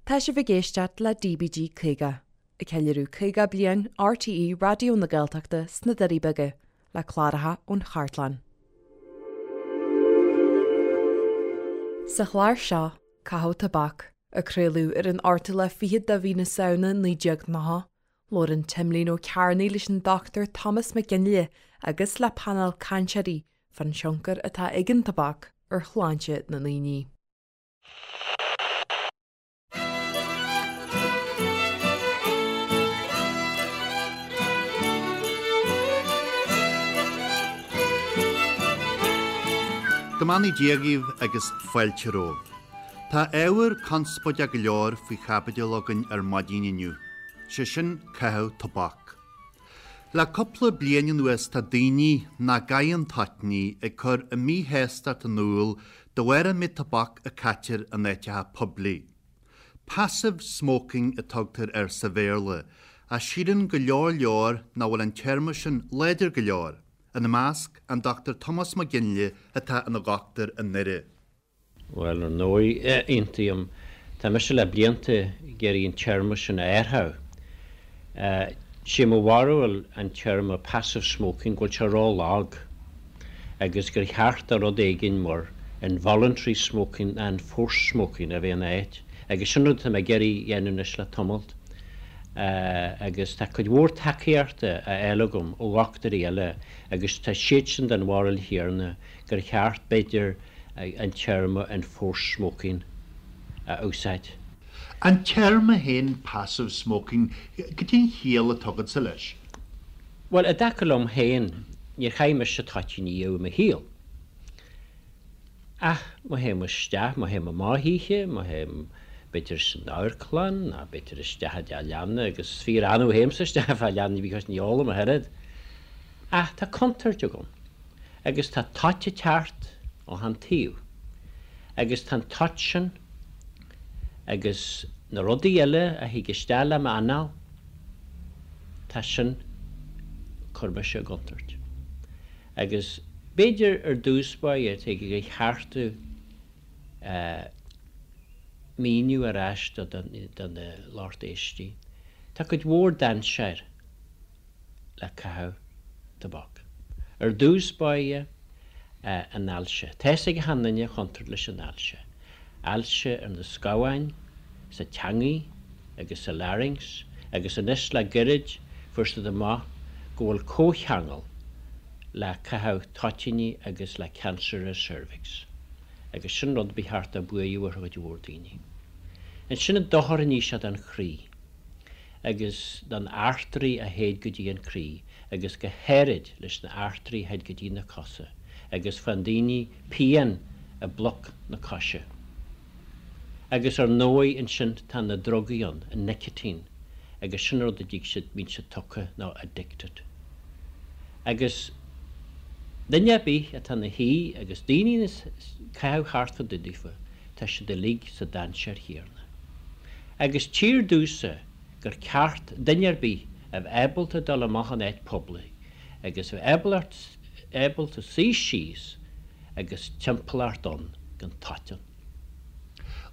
Tá sibh ag éisteacht le DBG 50, ag ceiliúradh 50 bliain RTÉ Raidió na Gaeltachta sna Doirí Beaga, le cláracha ón chartlann. Sa chlár seo, Caitheamh Tobac, a craoladh ar an ochtú lá fichead de mhí na Samhna 1990, Labhrann Timlín Ó Cearnaigh leis an Dr Tomás Mac Fhionnghaile agus le painéal cainteoirí fán tionchar atá ag an tobac ar shláinte na ndaoine. Go mbeannaí Dia dhaoibh agus fáilte romhaibh. Tá ábhar conspóideach go leor faoi chaibidil againn ar maidin inniu, sé sin caitheamh tobac. Le cúpla bliain anuas tá daoine nach gcaitheann toitíní ag cur a míshástacht in iúl de bharr an méid tobac a caitear in áiteacha poiblí. Passive smoking a tugtar air sa Bhéarla, ach síleann go leor leor nach bhfuil an téarma sin láidir go leor, ina measc an Dr Tomás Mac Fhionnghaile atá ina dhochtúir i nDoire. Bhuel, ar ndóigh, aontaím. Tá mise le blianta ag iarraidh an téarma sin a athrú. Sé mo bharúil an téarma passive smoking go bhfuil sé ró-lag agus gur cheart do rud éigin mar involuntary smoking ná enforced smoking a bheith ina áit agus sin rud atá mé ag iarraidh a dhéanamh anois le tamalt agus tá cuid mhór tacaíochta á fháil agam ó dhochtúirí eile agus tá siadsan den bharúil chéanna gur cheart, b'fhéidir, an téarma enforced smoking a úsáid. An téarma féin passive smoking, cad é an chiall atá agatsa leis? Bhuel, i dtaca liom féin, níor chaith mise toitín riamh i mo shaol. Ach má théim isteach, má théim amach oíche, má théim b'fhéidir san amharclann ná b'fhéidir isteach i dteach leanna, agus is fíor-annamh a théimse isteach i dteach leanna because ní ólaim ach oiread. Ach tá contúirt agam. Agus tá toit ag teacht ó chan taobh. Agus tá an toit sin agus na rudaí eile a thig isteach le m'anáil, tá sin ag cur mise i gcontúirt. Agus b'fhéidir ar dtús báire tig gur cheart míniú ar ais do na lucht éistí. Tá cuid mhór dainséir. le caitheamh tobac. Ar dtús báire, an ailse. Tá fhios ag achan duine an chontúirt leis an ailse. Ailse ar na scamháin, sa teangaidh agus sa larynx agus anois le goirid fuair siad amach go bhfuil comhcheangal le caitheamh toitíní agus le cancer ar cervix. Agus sin rud ba cheart do buaireamh ar chuid mhór daoine. Ansin an dochar a ní sé don chroí. agus don artery a théid go dtí an croí agus go háirid leis na artery a théid go dtí na cosa agus faigheann daoine pian i bpluc na coise. Agus ar ndóigh ansin tá na drugaí ann, an nicotine, agus sin rud a dtig siad, bíonn siad tugtha nó addicted. Agus duine ar bith atá ina shuí agus daoine ag caitheamh thart fá dtaobh daofa, tá siad uilig sa dainséar chéarna. Agus tchíthear domhsa gur ceart duine ar bith a bheith ábalta dul amach in áit poiblí agus a bheith ábalta suí síos agus timpeallacht ann gan toit ann.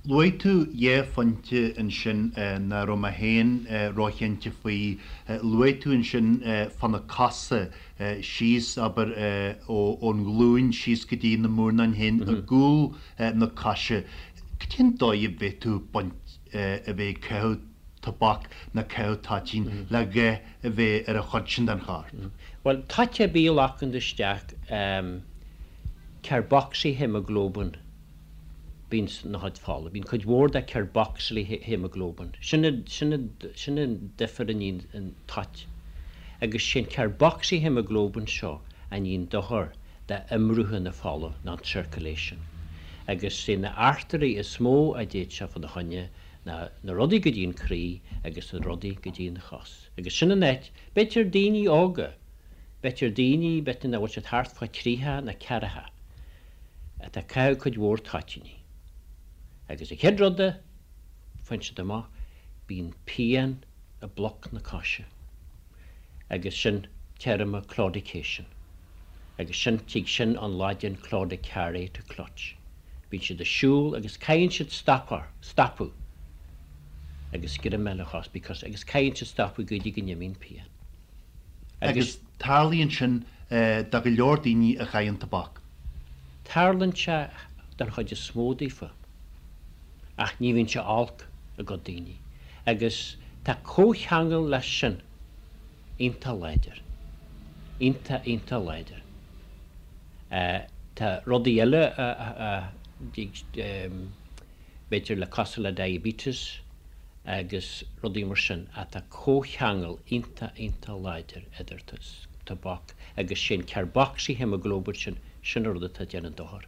Luaigh tú dhá phointe ansin nach raibh mé féin róchinnte faoi. Luaigh tú ansin fá na cosa síos, abair, ón nglúin síos go dtí na murnáin féin i gcúl na coise. Cad é an dóigh a bhféadfadh baint a bheith ag caitheamh tobac nó caitheamh toitín le dhath a bheith ar an chuid sin den chorp? Bhuel, toit ar bith a ghlacann isteach carboxyhaemoglobin bíonn sna chuid fola. Bíonn cuid mhór de carboxyhaemoglobin. Sin sin an difear a níonn an toit. Agus sé an carboxyhaemoglobin seo a níonn dochar d'imrotha na fola, ná an circulation. Agus sé na artairí is mó a d'fhéad sé fá na choinne ná na rudaí go dtí an croí agus na rudaí go dtí an chos. Agus sin an áit, b'fhéidir daoine óga, b'fhéidir daoine, b'fhéidir nach bhfuil siad thart fá thríocha ná ceathracha, atá ag caitheamh cuid mhór toitíní. Agus an chéad rud a faigheann siad amach, bíonn pian i bpluc na coise. Agus sin téarma claudication. Agus sin, tig sin ón Laidin claudicare, to clutch. Bíonn siad ag siúl agus caithfidh siad stopadh, stopadh. Agus greim eile a chos because agus caithfidh siad stopadh go dtí go n-imíonn pian. Agus tarlaíonn sin do go leor daoine a chaitheann tobac. Tarlaíonn sé don chuid is mó daofa ach ní bhíonn sé olc i gcuid daoine agus tá comhcheangal leis sin iontach láidir. Iontach, iontach láidir. Tá rudaí eile a b'fhéidir le cosúil le diabetes agus rudaí mar sin ach tá comhcheangal iontach, iontach láidir idir tobac agus sé an carboxyhaemoglobin sin, sin an rud atá ag déanamh dochar.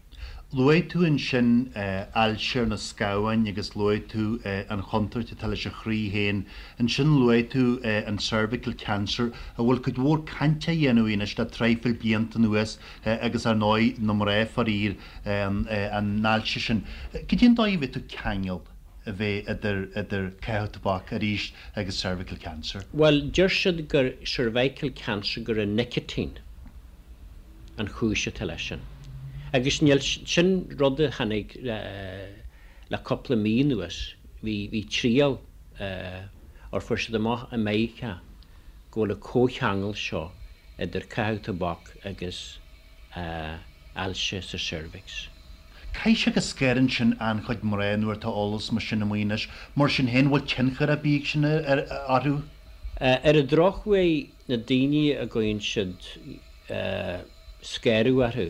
Luaigh tú ansin ailse ar na scamháin agus luaigh tú an chontúirt atá leis an chroí féin. Ansin luaigh tú an cervical cancer a bhfuil cuid mhór cainte á dhéanamh anois le traidhfil blianta anuas agus ar ndóigh na mná faraor an ailse sin. Cad é an dóigh a bhféadfadh ceangal a bheith idir idir caitheamh tobac arís agus cervical cancer? Bhuel, deir siad gur cervical cancer gur an nicotine an chúis atá leis sin. Agus níl, sin rud a tháinig le cúpla mí anuas, bhí, bhí triail ar fuair siad amach i Meiriceá go bhfuil an comhcheangal seo idir caitheamh tobac agus ailse sa cervix. Caithfidh sé go scanraíonn sin an-chuid mná nuair atá eolas mar sin amuigh anois. Mar sin féin, bhfuil tionchar ar bith ag sin orthu? Ar an drochuair, na daoine a gcuireann siad scanradh orthu,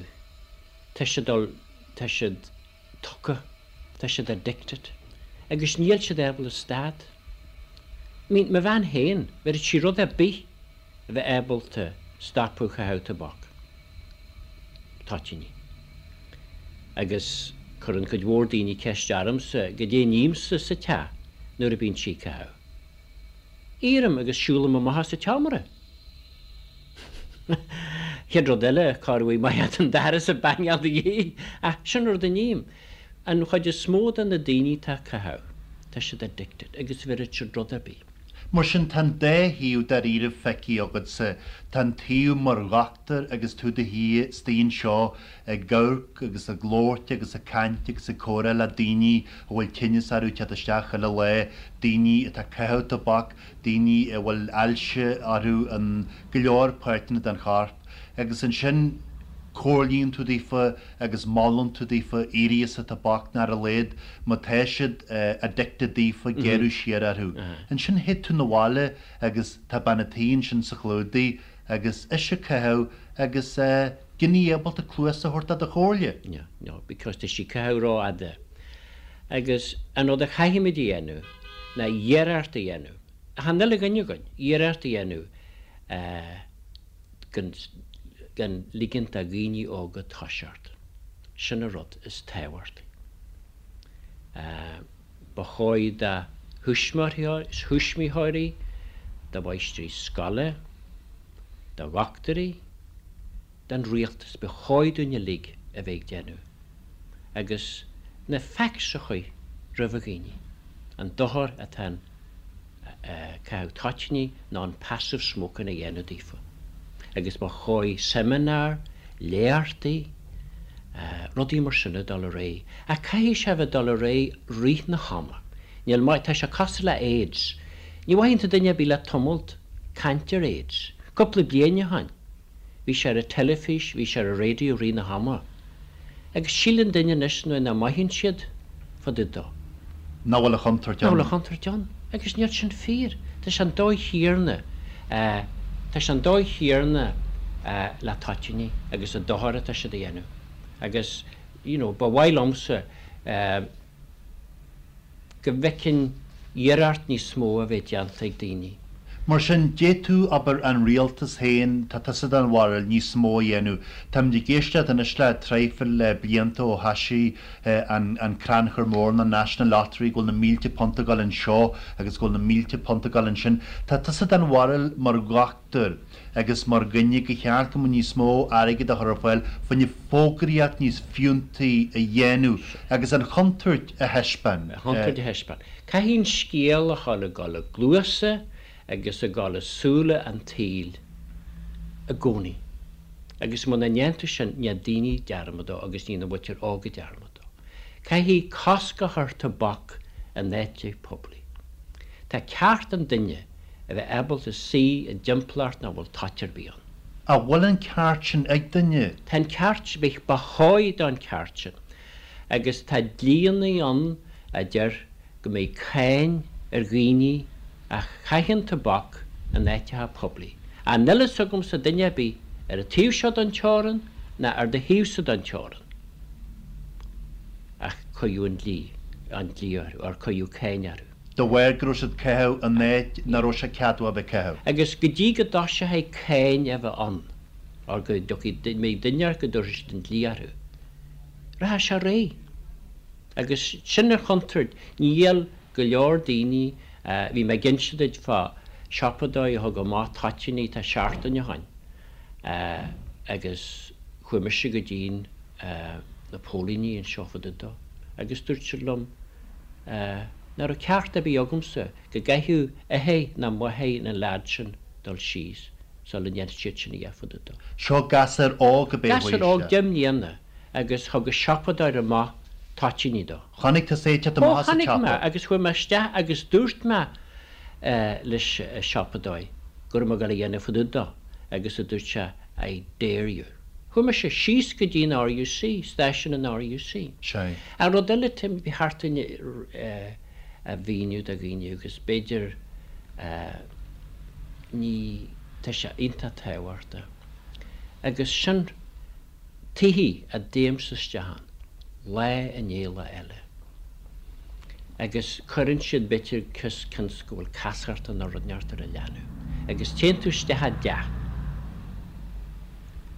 tá siad, tá siad tugtha, tá siad addicted agus níl siad ábalta stad. I mean, mo bhean féin, bhéarfadh sí rud ar bith a bheith ábalta stopadh caitheamh tobac, toitíní. Agus cuireann cuid mhór daoine ceist ormsa goidé a nímse sa teach nuair a bíonn sí ag caitheamh. Éirím agus siúlaim amach as an tseomra. Chéad rud eile, cá raibh maith an doras ag bangáil do dhi, ach sin rud a ním. An chuid is mó de na daoine atá ag caitheamh, tá siad addicted agus bhéarfadh siad rud ar bith. Mar sin, tá an dá thaobh dáiríribh feicthe agatsa. Tá an taobh mar dhochtúir agus tú i do shuí istigh anseo ag amharc agus ag labhairt agus ag caint agus ag comhrá le daoine a bhfuil tinneas orthu ag teacht isteach chuile lá, daoine atá ag caitheamh tobac, daoine a bhfuil ailse orthu in go leor páirteanna den chorp. Agus ansin comhairlíonn tú daofa agus molann tú daofa éirí as an tobac nó ar a laghad má tá siad addicted daofa géarú siar orthu. Ansin théid tú 'na bhaile agus tá bean a' tí ansin sa chlúdaigh agus ise ag caitheamh agus gan í ábalta cluas a thabhairt do do chomhairle. No, no, because tá sí ag caitheamh rófhada. Agus an rud a chaithfimid a dhéanamh ná iarracht a dhéanamh, achan uile dhuine againn, iarracht a dhéanamh gan, gan ligint do dhaoine óga toiseacht. Sin an rud is tábhachtaí. Ba chóir do thuismitheoirí, do mháistrí scoile, do dhochtúirí, don rialtas, ba chóir dúinn uilig a bheith ag déanamh agus na facts a chur roimh dhaoine, an dochar atá an caitheamh toitíní nó an passive smoking a dhéanamh daofa. Agus ba chóir seimineáir, léachtaí, rudaí mar sin a dul ar aghaidh. Ach caithfidh sé a bheith ag dul ar aghaidh rith na hama. Níl maith, tá sé cosúil le AIDS. Ní mhothaíonn tú duine ar bith le tamalt caint ar AIDS. Cúpla bliain ó shin, bhí sé ar an teilifís, bhí sé ar an raidió rith na hama. Agus síleann duine anois nuair nach mothaíonn siad fá dtaobh dó. Nach bhfuil a chontúirt ann. Nach bhfuil a chontúirt ann. Agus níl sin fíor. Tá sé an dóigh chéanna, tá sé an dóigh chéanna le toitíní agus an dochar atá siad a dhéanamh. Agus, you know, ba mhaith liomsa, go bhfeicfinn iarracht níos mó a bheith déanta ag daoine. Mar sin, d'fhéadfadh, abair, an rialtas féin, tá tusa den bharúil, níos mó a dhéanamh. Táimid ag éisteacht anois le traidhfil blianta ó thoisigh an crannchur mór na National Lottery go bhfuil na mílte punt ag dul anseo agus go bhfuil na mílte punt ag dul ansin. Tá tusa den bharúil mar dhochtúir agus mar dhuine gur cheart go mbeadh níos mó airgid á chur ar fáil fá choinne fógraíocht níos fiúntaí a dhéanamh agus an chontúirt a thaispeáin. An chontúirt a thaispeáin. Caithfidh an scéal a dhul ag dul i gcluasa agus ag dul i súile an tsaoil i gcónaí. Agus muna ndéantar sin, ní daoine dearmad dó agus ní an mhuintir óga dearmad dó. Caithfidh cosc a chur tobac in áiteanna poiblí. Tá ceart an duine a bheith ábalta suí i dtimpeallacht nach bhfuil toit ar bith ann. An bhfuil an ceart sin ag duine? Tá an ceart, ba chóir don ceart sin. Agus tá dlíannaí ann a deir go mbeidh cáin ar dhaoine a chaitheann tobac in áiteacha poiblí. Ach níl fhios agamsa duine ar bith ar an taobh seo den teorainn ná ar do thaobhsa den teorainn ach cuireadh an dlí, an dlí orthu, or cuireadh cáin orthu. De bharr go raibh siad ag caitheamh in áit nach raibh sé ceadmhach a bheith ag caitheamh. Agus go dtí go dtoiseoidh cáin a bheith ann, or go dtiocfaidh, mbeidh duine ort go dtabharfaidh siad an dlí orthu, rachaidh sé ar aghaidh. Agus sin an chontúirt. Níl go leor daoine, bhí mé ag inse duit fá siopadóir a thug amach toitíní tá seachtain ó shoin agus chuaigh mise go dtí'n na póilíní anseo fá dtaobh dó agus dúirt siad liom nach raibh ceart ar bith agamsa go gcaithfeadh athair ná máthair an leaid sin dul síos sula ndéanfadh siad sin a dhath fá dtaobh dó. Seo gasúr óg ab é Gasúr óg 10 mbliana. agus thug an siopadóir amach toitíní dó. Chonaic tusa é ag teacht amach as an tsiopa? Ó, chonaic mé, agus chuaigh mé isteach agus dúirt mé leis an siopadóir go raibh mé ag dul a dhéanamh fá dtaobh dó agus a dúirt sé I dare you. Chuaigh mise síos go dtí an RUC, stáisiún an RUC. Sea. An rud eile, Tim, ba cheart dúinn a mhíniú do dhaoine agus b'fhéidir ní, tá sé iontach tábhachtach agus sin, Tithe a dtéimse isteach ann, lá i ndiaidh lá eile. Agus cuireann siad b'fhéidir cionn is go bhfuil casacht nó rud inteacht ar an leanbh. Agus téann tú isteach i dteach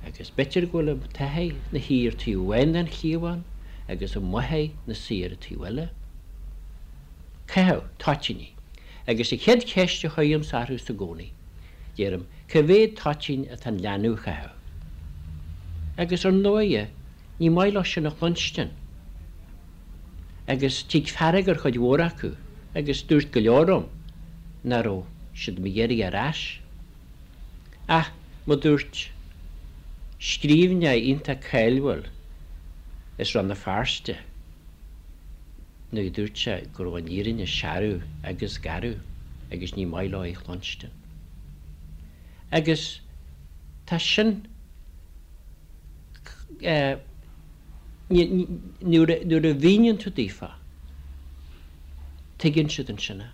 agus b'fhéidir go bhfuil an t-athair 'na shuí ar taobh amháin den chliabhán agus an mháthair 'na suí ar an taobh eile. Caitheamh toitíní. Agus an chéad cheist a chuirimse orthu sa gcónaí, deirim, Cá mhéad toitín atá an leanbh a chaitheamh? Agus ar ndóighe, ní maith leo sin a chluinstin. Agus tig fearg ar chuid mhór acu, agus dúirt go leor liom nach raibh siad mo iarraidh ar ais. Ach, mar dúirt scríbhneoir iontach cáiliúil as Rann na Feirste, nuair a dúirt sé go raibh an fhírinne searbh agus garbh agus ní maith leo í a chluinstin. Agus tá sin, nuair a mhíníonn tú daofa, tuigeann siad ansin é.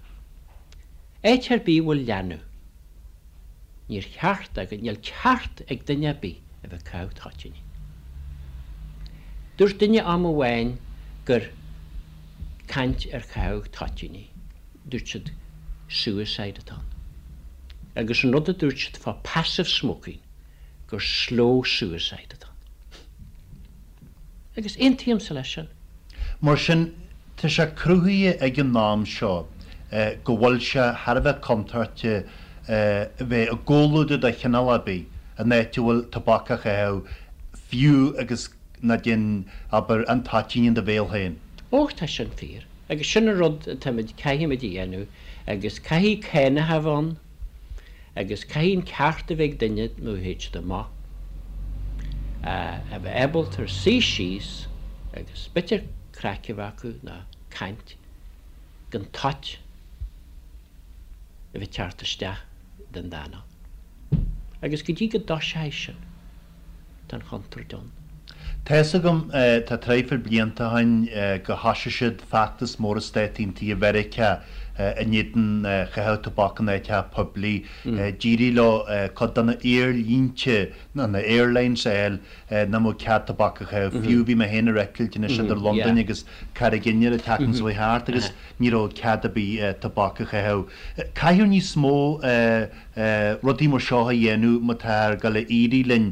Áit ar bith a bhfuil leanbh, níor cheart agus níl ceart ag duine ar bith a bheith ag caitheamh toitíní. Dúirt duine am amháin gur caint ar chaitheamh toitíní. dúirt siad suicide atá ann. Agus an rud a dúirt siad fá passive smoking gur slow suicide atá ann. Agus aontaímse leis sin. Mar sin, tá sé cruthaithe ag an am seo go bhfuil sé thar a bheith contúirteach a bheith i gcomhluadar de chineál ar bith in áit a bhfuil tobac á chaitheamh, fiú agus ná déan, abair, an toitín in do bhéal féin. Ó, tá sin fíor. Agus sin an rud atáimid, caithfimid a dhéanamh agus caithfidh cánacha a bheith ann agus caithfidh an ceart a bheith ag duine nuair a théid siad amach a bheith ábalta suí síos agus b'fhéidir craic a bheith acu nó caint gan toit a bheith ag teacht isteach den d'anáil. Agus go dtí go dtoiseoidh sin. Tá an chontúirt ann. Tá fhios agam, tá traidhfil blianta ó shin, go thoisigh siad feachtas mór i Stáit Aontaithe Mheiriceá in éadan chaitheamh tobac in áiteacha poiblí. D'éirigh leo cuid de na haerlínte, nó na airlines a fháil nach mbeadh cead tobac a chaitheamh. Fiú bhí mé féin ar eitilt anois idir Londain agus Carraig Fhinn an tseachtain seo chuaigh thart agus ní raibh cead ar bith tobac a chaitheamh. Caithfear níos mó rudaí mar seo a dhéanamh má táthar ag dul a éirí linn,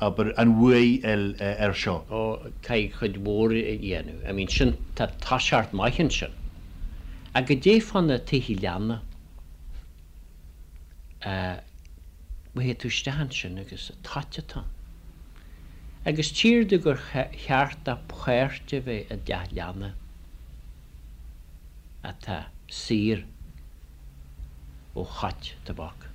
abair, an bhuaidh a fháil air seo. Ó, caithfidh cuid mhór a dhéanamh. I mean, sin, tá toiseacht maith ansin. Ach goidé fá na tithe leanna, má théid tú isteach ansin agus toit atá ann. Agus tchíthear domh gur cheart do pháirt a bheith i dteach leanna atá saor. ó thoit tobac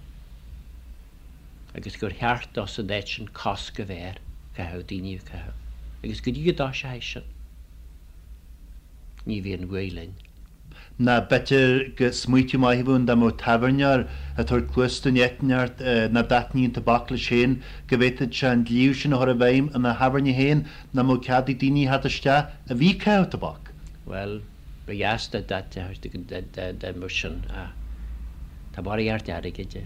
agus gur cheart dó san áit sin cosc a bheith air caitheamh, daoine a chaitheamh, agus go dtí go dtoiseoidh sin, ní bheidh an bhuaidh linn. Ná b'fhéidir go smaoitiú maith a bheadh ann dá mbeadh tábhairneoir ag tabhairt cluas don eitneacht nach dtaitníonn tobac leis féin, go bhféadfadh sé an dlí sin a chur i bhfeidhm ina thábhairne féin nach mbeadh cead ag daoine theacht isteach a bhí ag caitheamh tobac. Bhuel, ba dheas dá mbeadh sin ach tá barraíocht airgid i.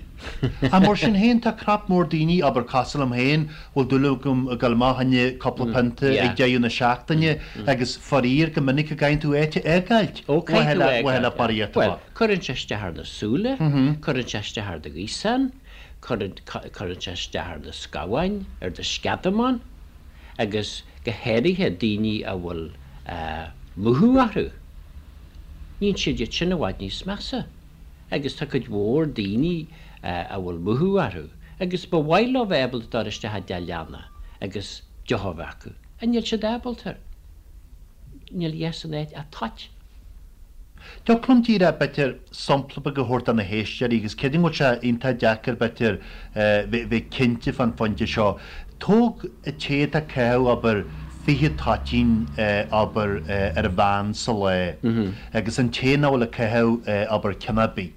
Ach mar sin féin, tá crap mór daoine, abair cosúil liom féin, bhfuil dúil agam ag dul amach fá choinne cúpla pionta ag deireadh na seachtaine agus faraor go minic go gcaithfidh tú áit a fhágáilt Ó, caithfidh tú a fhágáilt, le barraíocht Bhuel, tobac. cuireann sé isteach ar na súile, cuireann sé isteach ar do ghaosán, cuireann sé isteach ar na scamháin, ar do sceadamán agus go háirithe daoine a bhfuil múchadh orthu, níonn siad iad sin i bhfad níos measa. Agus tá cuid mhór daoine a bhfuil múchadh orthu agus ba mhaith leo bheith ábalta dul isteach i dteach leanna agus deoch a bheith acu, ach níl siad ábalta. Níl a dhath san áit ach toit. Thiocfadh liom díreach, b'fhéidir, sampla beag a thabhairt do na héisteoirí agus creidim go bhfuil sé iontach deacair, b'fhéidir, bheith cinnte fán phointe seo. Tóg an té atá ag caitheamh, abair, 20 toitín, abair, ar an mheán sa lá agus an té nach bhfuil ag caitheamh, abair, ceann ar bith.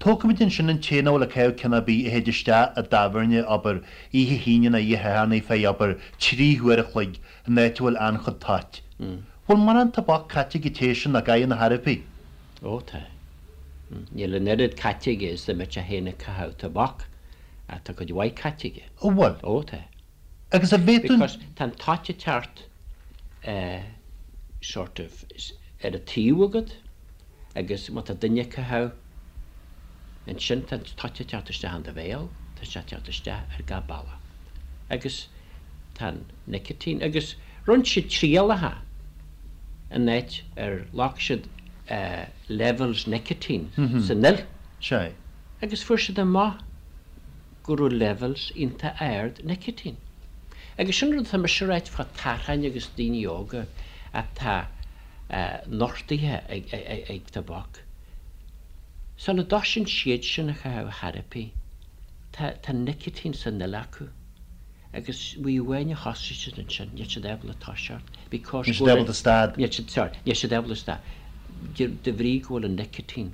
Tógfaimid ansin an té nach bhfuil ag caitheamh ceann ar bith a théid isteach i dtábhairne, abair, oíche hAoine nó oíche Shathairn ar feadh, abair, 3 huair a chloig in áit a bhfuil an-chuid toit. Bhfuil mórán tobac caite ag an té sin nach gcaitheann ar chor ar bith? Ó tá. Níl an oiread caite aige is dá mbeadh sé féin ag caitheamh tobac ach tá cuid mhaith caite aige. Ó bhfuil? Ó tá. Agus an bhféadfainn. Because tá an toit ag teacht eh sort of ar an taobh agat agus má tá duine ag caitheamh ansin tá an toit ag teacht isteach in do bhéal, tá sé ag teacht isteach ar gach bealach. Agus tá an nicotine agus rinne siad trialacha in áit ar ghlac siad levels nicotine san fhuil Sea. agus fuair siad amach go raibh levels iontach ard nicotine. Agus sin rud atá mise a ráit fá tacháin agus daoine óga atá nochtaithe ag tobac. Sula dtosaíonn siad sin a chaitheamh chor ar bith, tá nicotine san fhuil acu. Agus uair amháin a thosaigh siad ansin, níl siad ábalta toiseacht because Níl siad ábalta stad. Níl siad, sorry, níl siad ábalta stad de, de bhrí go bhfuil an nicotine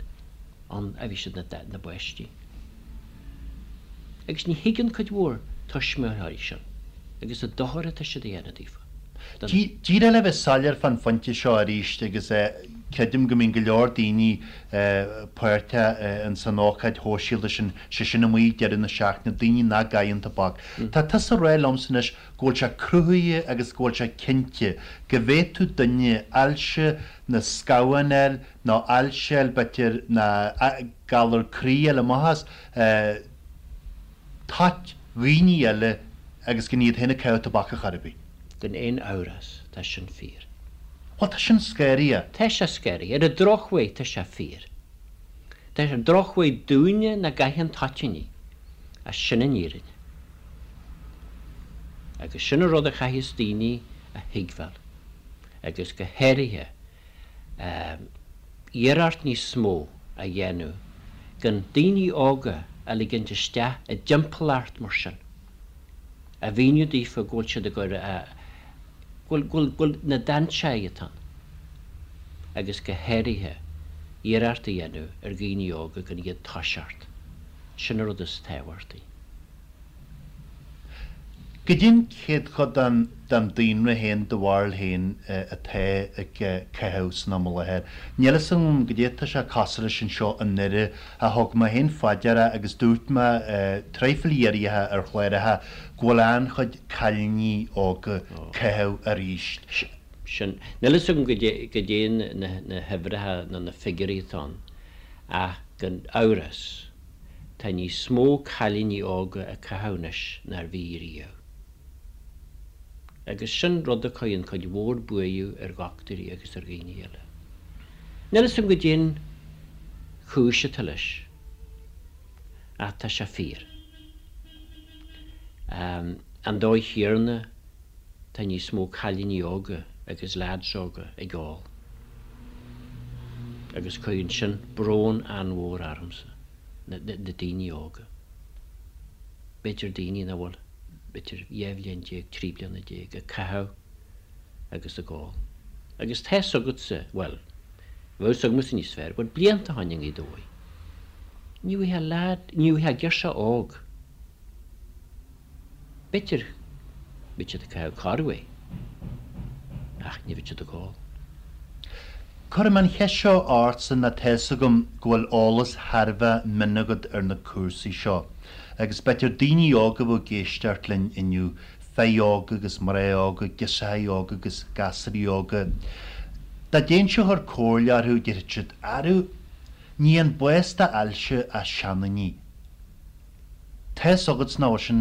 ann ó bhí siad ina, ina bpáistí. Agus ní thuigeann cuid mhór tuismitheoirí sin agus an dochar atá siad a dhéanamh daofa. Don. Díreach le bheith soiléir fán phointe seo arís agus creidim go mbíonn go leor daoine páirteach ins an ócáid shóisialta sin, sé sin amuigh ag deireadh na seachtaine, daoine nach gcaitheann tobac. Tá tusa ag rá liomsa anois go bhfuil sé cruthaithe agus go bhfuil sé cinnte go bhféadfadh duine ailse na scamhán a fháil nó ailse a fháil b'fhéidir ná galar croí a fháil amach as toit dhaoine eile agus gan iad féin ag caitheamh tobac ar chor ar bith. Gan aon amhras, tá sin fíor. Bhuel, tá sin scary. Tá sé scary. Ar an drochuair, tá sé fíor. Tá sé drochuair dúinne nach gcaitheann toitíní, ach sin an fhírinne. Agus sin an rud a chaithfeas daoine a thuigbheáil, agus go háirithe iarracht níos mó a dhéanamh gan daoine óga a ligint isteach i dtimpeallacht mar sin, a mhíniú daofa go bhfuil siad ag cur a, go bhfuil, go bhfuil na dainséir atá ann, agus go háirithe iarracht a dhéanamh ar dhaoine óga gan iad toiseacht. Sin an rud is tábhachtaí. Goidé'n céadchuid den den daonra féin, do bharúil féin, atá ag caitheamh san am i láthair? Níl fhios agam goidé atá sé cosúil leis anseo i nDoire ach thug mé féin fá deara agus dúirt mé traidhfil iarraidh ar chláracha go bhfuil an-chuid cailíní óga caitheamh arís. Sin. Níl fhios agam goidé goidé na huimhreacha nó na figiúirí atá ann ach gan amhras Tá níos mó cailíní óga ag caitheamh anois ná bhí riamh. Agus sin rud a chuireann cuid mhór buaireamh ar dhochtúirí agus ar dhaoine eile. Níl fhios agam goidé'n chúis atá leis, ach tá sé fíor. An dóigh chéanna tá níos mó cailíní óga agus lads óga ag ól. Agus cuireann sin brón an-mhór ormsa, na daoine óga. B'fhéidir daoine nach bhfuil b'fhéidir 12 bhliain, 13 bliana ag caitheamh agus ag ól. Agus tá's agatsa, bhuel. Bheadh fhios agamsa níos fearr, but blianta ó shoin i nGaoth Dobhair. Ní bhfaighfeá leaid, ní bhfaighfeá girseach óg. B'fhéidir go mbeadh siad ag caitheamh corruair, ach ní bheadh siad ag ól. Cuirfidh mé an cheist seo ortsa nó tá fhios agam go bhfuil eolas thar a bheith mion agat ar na cúrsaí seo agus b'fhéidir daoine óga a bheadh ag éisteacht linn inniu, fir óga agus mná óga, girseachaí óga agus gasúraí óga. Dá dtéinnse a chur comhairle orthu, déarfadh siad, Arú, ní an bás d'ailse ach seandaoine. Tá fhios agat nach bhfuil sin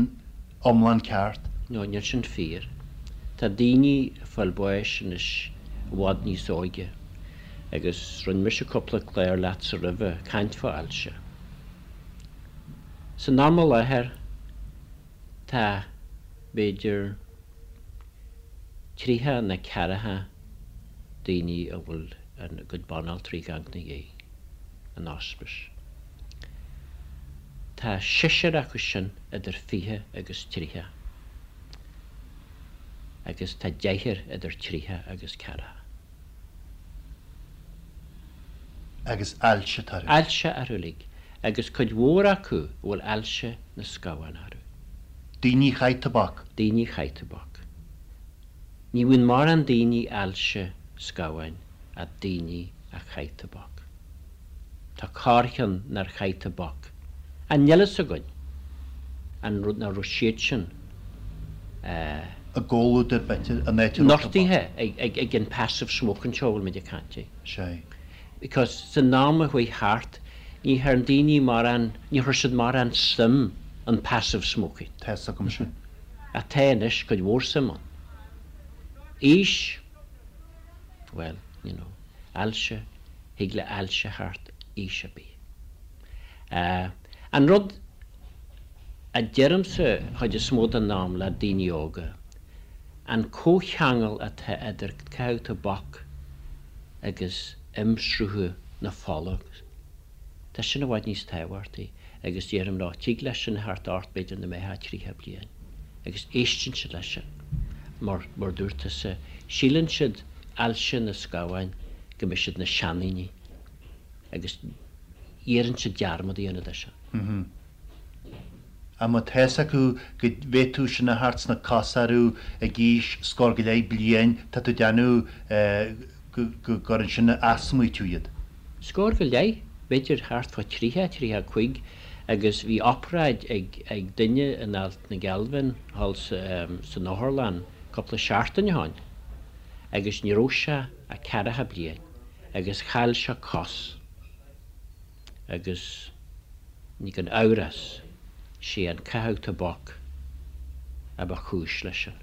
iomlán ceart. No, níl sin fíor. Tá daoine ag fáil bháis anois i bhfad níos óige. Agus rinne mise cúpla clár leatsa roimhe, caint fá ailse. San am i láthair, tá, b'fhéidir, 30 nó 40 daoine a bhfuil a gcuid banaltraí ag amharc ina dhiaidh. in ospís. Tá seisear acu sin idir 20 agus 30 agus tá deichniúr idir 30 agus 40. Agus ailse atá orthu. Ailse orthu uilig, agus cuid mhór acu a bhfuil ailse na scamhán orthu. Daoine a chaith tobac. Daoine a chaith tobac. Ní bhíonn mórán daoine ailse scamháin ach daoine a chaith tobac. Tá corrcheann nár chaith tobac. Ach níl fhios againn an rud nach raibh siad sin i gcomhluadar b'fhéidir an áit a raibh tobac. Nochtaithe ag an passive smoking seo a bhfuil muid ag caint air. Sea. Because san am a chuaigh thart ní thearn daoine mórán, ní chuir siad mórán suim in passive smoking. Tá fhios agam sin. Ach tá anois cuid mhór suim ann. Aois, bhuel, you know, ailse, thig le ailse theacht aois ar bith. An rud a deirimse chuid is mó den am le daoine óga, an comhcheangal atá idir caitheamh tobac agus imshruthu na fola, Tá sin i bhfad níos tábhachtaí agus déarfainn leo, tig leis sin theacht ort b'fhéidir nuair a mbeifeá 30 bliain agus éisteann siad leis sin mar, mar dúirt tusa, síleann siad ailse na scamháin go mbeidh siad ina seandaoine agus iarrann siad dearmad a dhéanamh de sin. Ach má tá fhios acu go bhféadfadh sin a theacht sna cosa orthu ag aois scór go leith bliain, tá tú ag déanamh go gcuireann sin as smaoitiú iad. Scór go leith, b'fhéidir thart fá 30, 35 agus bhí obráid ag duine in Ailt na Gealbhan thall san otharlann cúpla seachtain ó shoin agus ní raibh sé ach ceathracha bliain agus chaill sé cos. agus ní gan amhras, sé an caitheamh tobac a ba chúis leis sin.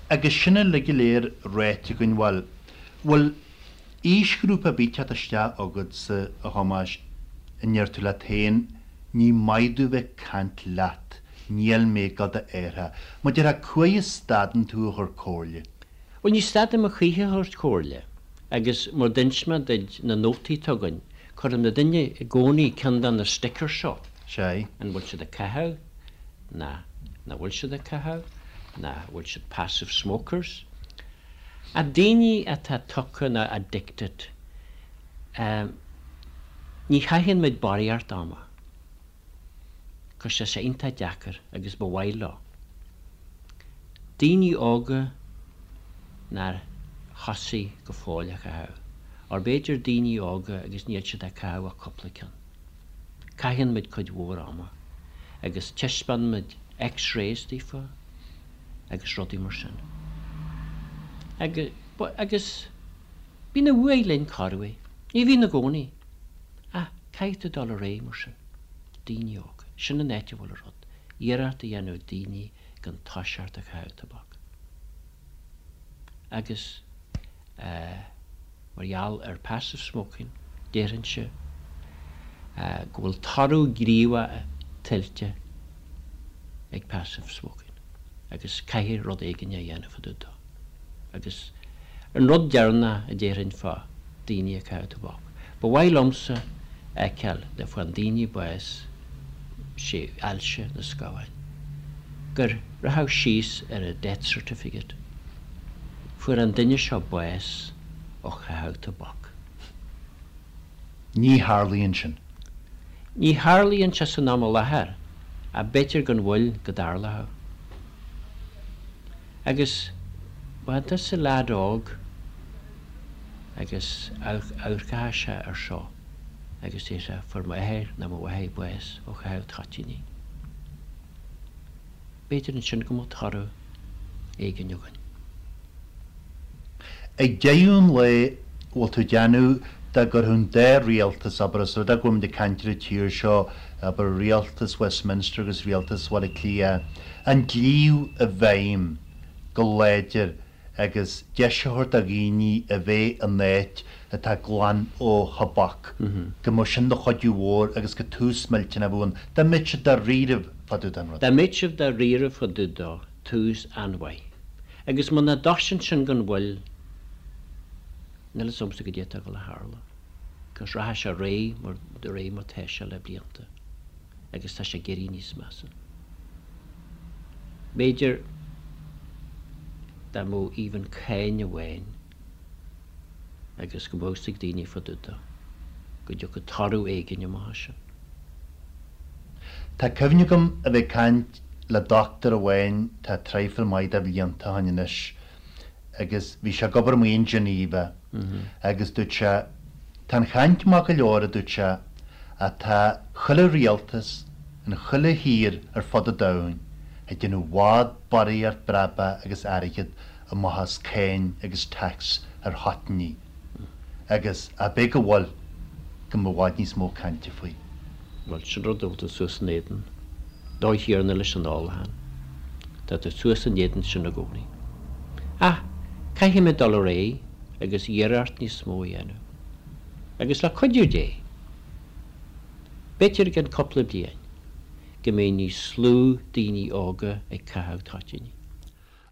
Agus sin uilig go léir ráite againn, bhuel, bhfuil aoisghrúpa ar bith ag teacht isteach agatsa, a Thomáis, a ndeir tú leat féin, ní maith domh bheith ag caint leat, níl mé ag gabháil d'athraithe. Mar a déarfá, cá huair a stadann tú a chur comhairle? Bhuel, ní stadaim a choíche a thabhairt comhairle, agus mar d'inis mé duit, na nótaí atá againn, Cuireann na duine i gcónaí ceann de na stickers seo. Sea. An bhfuil siad ag caitheamh? Ná nach bhfuil siad ag caitheamh? Ná bhfuil siad passive smokers? Ach daoine atá tugtha nó addicted, ní chaitheann muid barraíocht ama. 'Cause tá sé iontach deacair agus ba mhaith leo. Daoine óga nár thosaigh go fóill a chaitheamh, or b'fhéidir daoine óga agus níl siad ag caitheamh ach cúpla ceann. Caitheann muid cuid mhór ama agus taispeánann muid x-rays daofa agus rudaí mar sin. Agus bíonn a uaidh linn corruair, ní bhíonn i gcónaí, ach caithfidh tú dul ar aghaidh mar sin. Daoine óga, sin an áit a bhfuil an rud, iarracht a dhéanamh daoine gan toiseacht a chaitheamh tobac. Agus mar gheall ar passive smoking, déarfainnse go bhfuil toradh gníomhach tuillte ag passive smoking agus caithfidh rud éigin a dhéanamh fá dtaobh dó. Agus an rud deireanach a déarfainn fá daoine ag caitheamh tobac, ba mhaith liomsa a fheiceáil nuair a fhaigheann daoine bás, sé ailse na scamháin, gur rachadh síos ar a death certificate, fuair an duine seo bás ó chaitheamh tobac. Ní tharlaíonn sin. Ní tharlaíonn sé san am i láthair ach b'fhéidir gan mhoill go dtarlódh. Agus má tá tusa leaid óg agus amharcfá sé ar seo agus déarfá fuair m'athair nó mo mháthair bás ó chaitheamh toitíní. B'fhéidir ansin go mbeadh toradh éigin againn. Ag deireadh an lae, bhfuil tú ag déanamh dá gcuirfeadh an dá rialtas, abair, os rud é go bhfuilimid ag caint ar an tír seo, abair, rialtas Westminster agus rialtas Bhaile Átha Cliath, an dlí i bhfeidhm go láidir agus deis a thabhairt do dhaoine a bheith in áit atá glan ó thobac, go mbeadh sin de chuidiú mhór agus gur tús millteanach a bheadh ann, dá mbeadh siad dáiríribh fá dtaobh den rud. Dá mbeadh siad dáiríribh fá dtaobh dó, tús an-mhaith. Agus muna dtoisíonn sin gan mhoill, níl fhios a'msa goidé atá ag dul a tharlú. 'Cause rachaidh sé ar aghaidh mar de réir mar tá sé le blianta agus tá sé ag éirí níos measa. B'fhéidir dá mbeadh even cáin amháin agus go mbeadh fhios ag daoine fá dtaobh dó, go dtiocfadh toradh éigin amach as sin. Tá cuimhne agam a bheith ag caint le dochtúir amháin tá traidhfil maith de bhlianta ó shin anois agus bhí sé ag obair amuigh in Geneva agus dúirt sé, tá an chaint maith go leor, a dúirt sé, ach tá chuile rialtas in chuile thír ar fud an domhain ag déanamh i bhfad barraíocht brabach agus airgead amach as cáin agus tax ar thoitíní agus ab é go bhfuil go mbeadh i bhfad níos mó cainte faoi. Bhuel, sin rud a bhfuil tú suas in éadan dóigh chéanna leis an ólachán. Tá tú suas in éadan sin i gcónaí. Ach caithfimid dul ar aghaidh agus iarracht níos mó a dhéanamh. Agus le cuidiú Dé, b'fhéidir i gceann cúpla bliain, go mbeidh níos lú daoine óga ag caitheamh toitíní.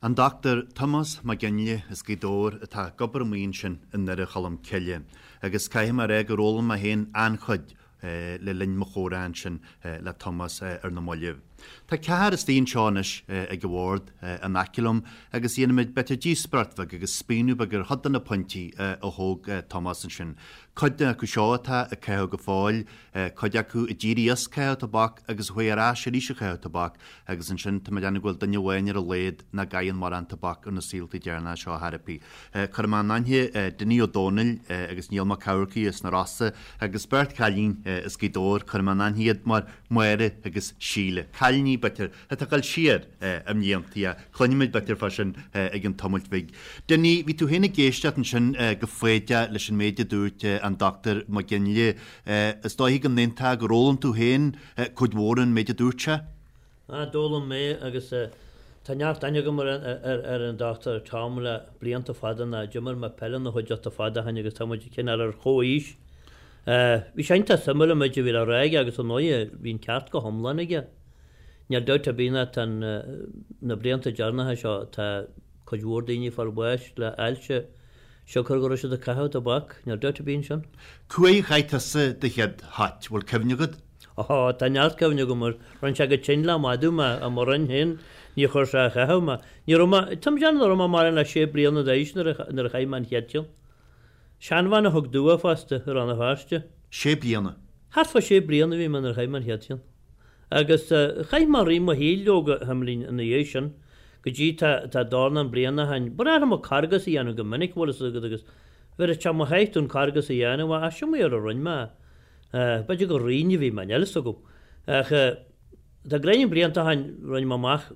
An Dr Tomás Mac Fhionnghaile as Gaoth Dobhair atá ag obair amuigh ansin i nDoire Cholm Cille agus caithfidh mé a rá gur fhoghlaim mé féin an-chuid le linn mo chomhrá ansin le Tomás ar na mallaibh. Tá ceathrar istigh anseo anois ag an bhord in aice liom agus dhéanfaimid b'fhéidir díospóireacht bheag agus spíonadh beag ar chuid de na pointí a thóg Tomás ansin. Cuid acu seo atá ag caitheamh go fóill, cuid acu a d'éirigh as caitheamh tobac agus a chuaigh ar ais arís ag caitheamh tobac Agus ansin, tá mé ag déanamh go bhfuil duine amháin ar a laghad nach gcaitheann mórán tobac ar na saoltaí deireanacha seo ar chor ar bith. Cuirfidh mé in aithne Dinny Ó Dónaill agus Niall Mac Eamharcaigh as na Rosa agus beirt chailín as Gaoth Dobhair, cuirfidh mé in aithne iad mar Máire agus Síle. Cailíní, b'fhéidir, atá ag dul siar i mblianta, ach cluinfimid b'fhéidir fá sin i gcionn tamaill bhig. Dinny, bhí tú féin ag éisteacht ansin go foighdeach leis an méid a dúirt an Dr Mac Fhionnghaile. Is dóiche go n-aontófá gur fhoghlaim tú féin cuid mhór ón méid a dúirt sé. Ah, d'fhoghlaim mé agus tá neart aithne agam ar an Dr Tom le blianta fada ná d'imir mé peil ina chuideachta fada ó shin agus tá muid cineál ar chomhaois. Bhí sé iontach suimiúil an méid a bhí le rá aige agus ar ndóighe bhí an ceart go hiomlán aige. Níl dabht ar bith ná tá na blianta deireanacha seo tá cuid mhór daoine ag fáil bháis le ailse siocair go raibh siad ag caitheamh tobac, níl dabht ar bith ansin. Cá huair a chaith tusa do chéad thoit, bhfuil cuimhne agat? Ó, tá neart cuimhne agam air. Rinne sé go tinn le madadh mé, i mo roinn féin, níor chuir sé a chaitheamh mé. Ní raibh mé, tá mé ag déanamh nach raibh mé mórán le sé bliana d'aois nuair a, nuair a chaith mé an chéad cheann. Seanbhean a thug domh é fosta, i Rann na Feirste. Sé bliana? Thart fá sé bliana a bhí mé nuair a chaith mé an chéad cheann. Agus chaith mé rith mo shaoil leoga, a Himlín, ina dhiaidh sin, go dtí tá, tá dornán bliana ó shin. Ba bhreá liom carghas a dhéanamh go minic, bhfuil fhios agat, agus bheireadh sé mo sháith dom carghas a dhéanamh, ach sin mar a rinne mé é. B'fhéidir gur righin a bhí mé, níl fhios agam. Ach tá gráinnín blianta ó shin, rinne mé amach,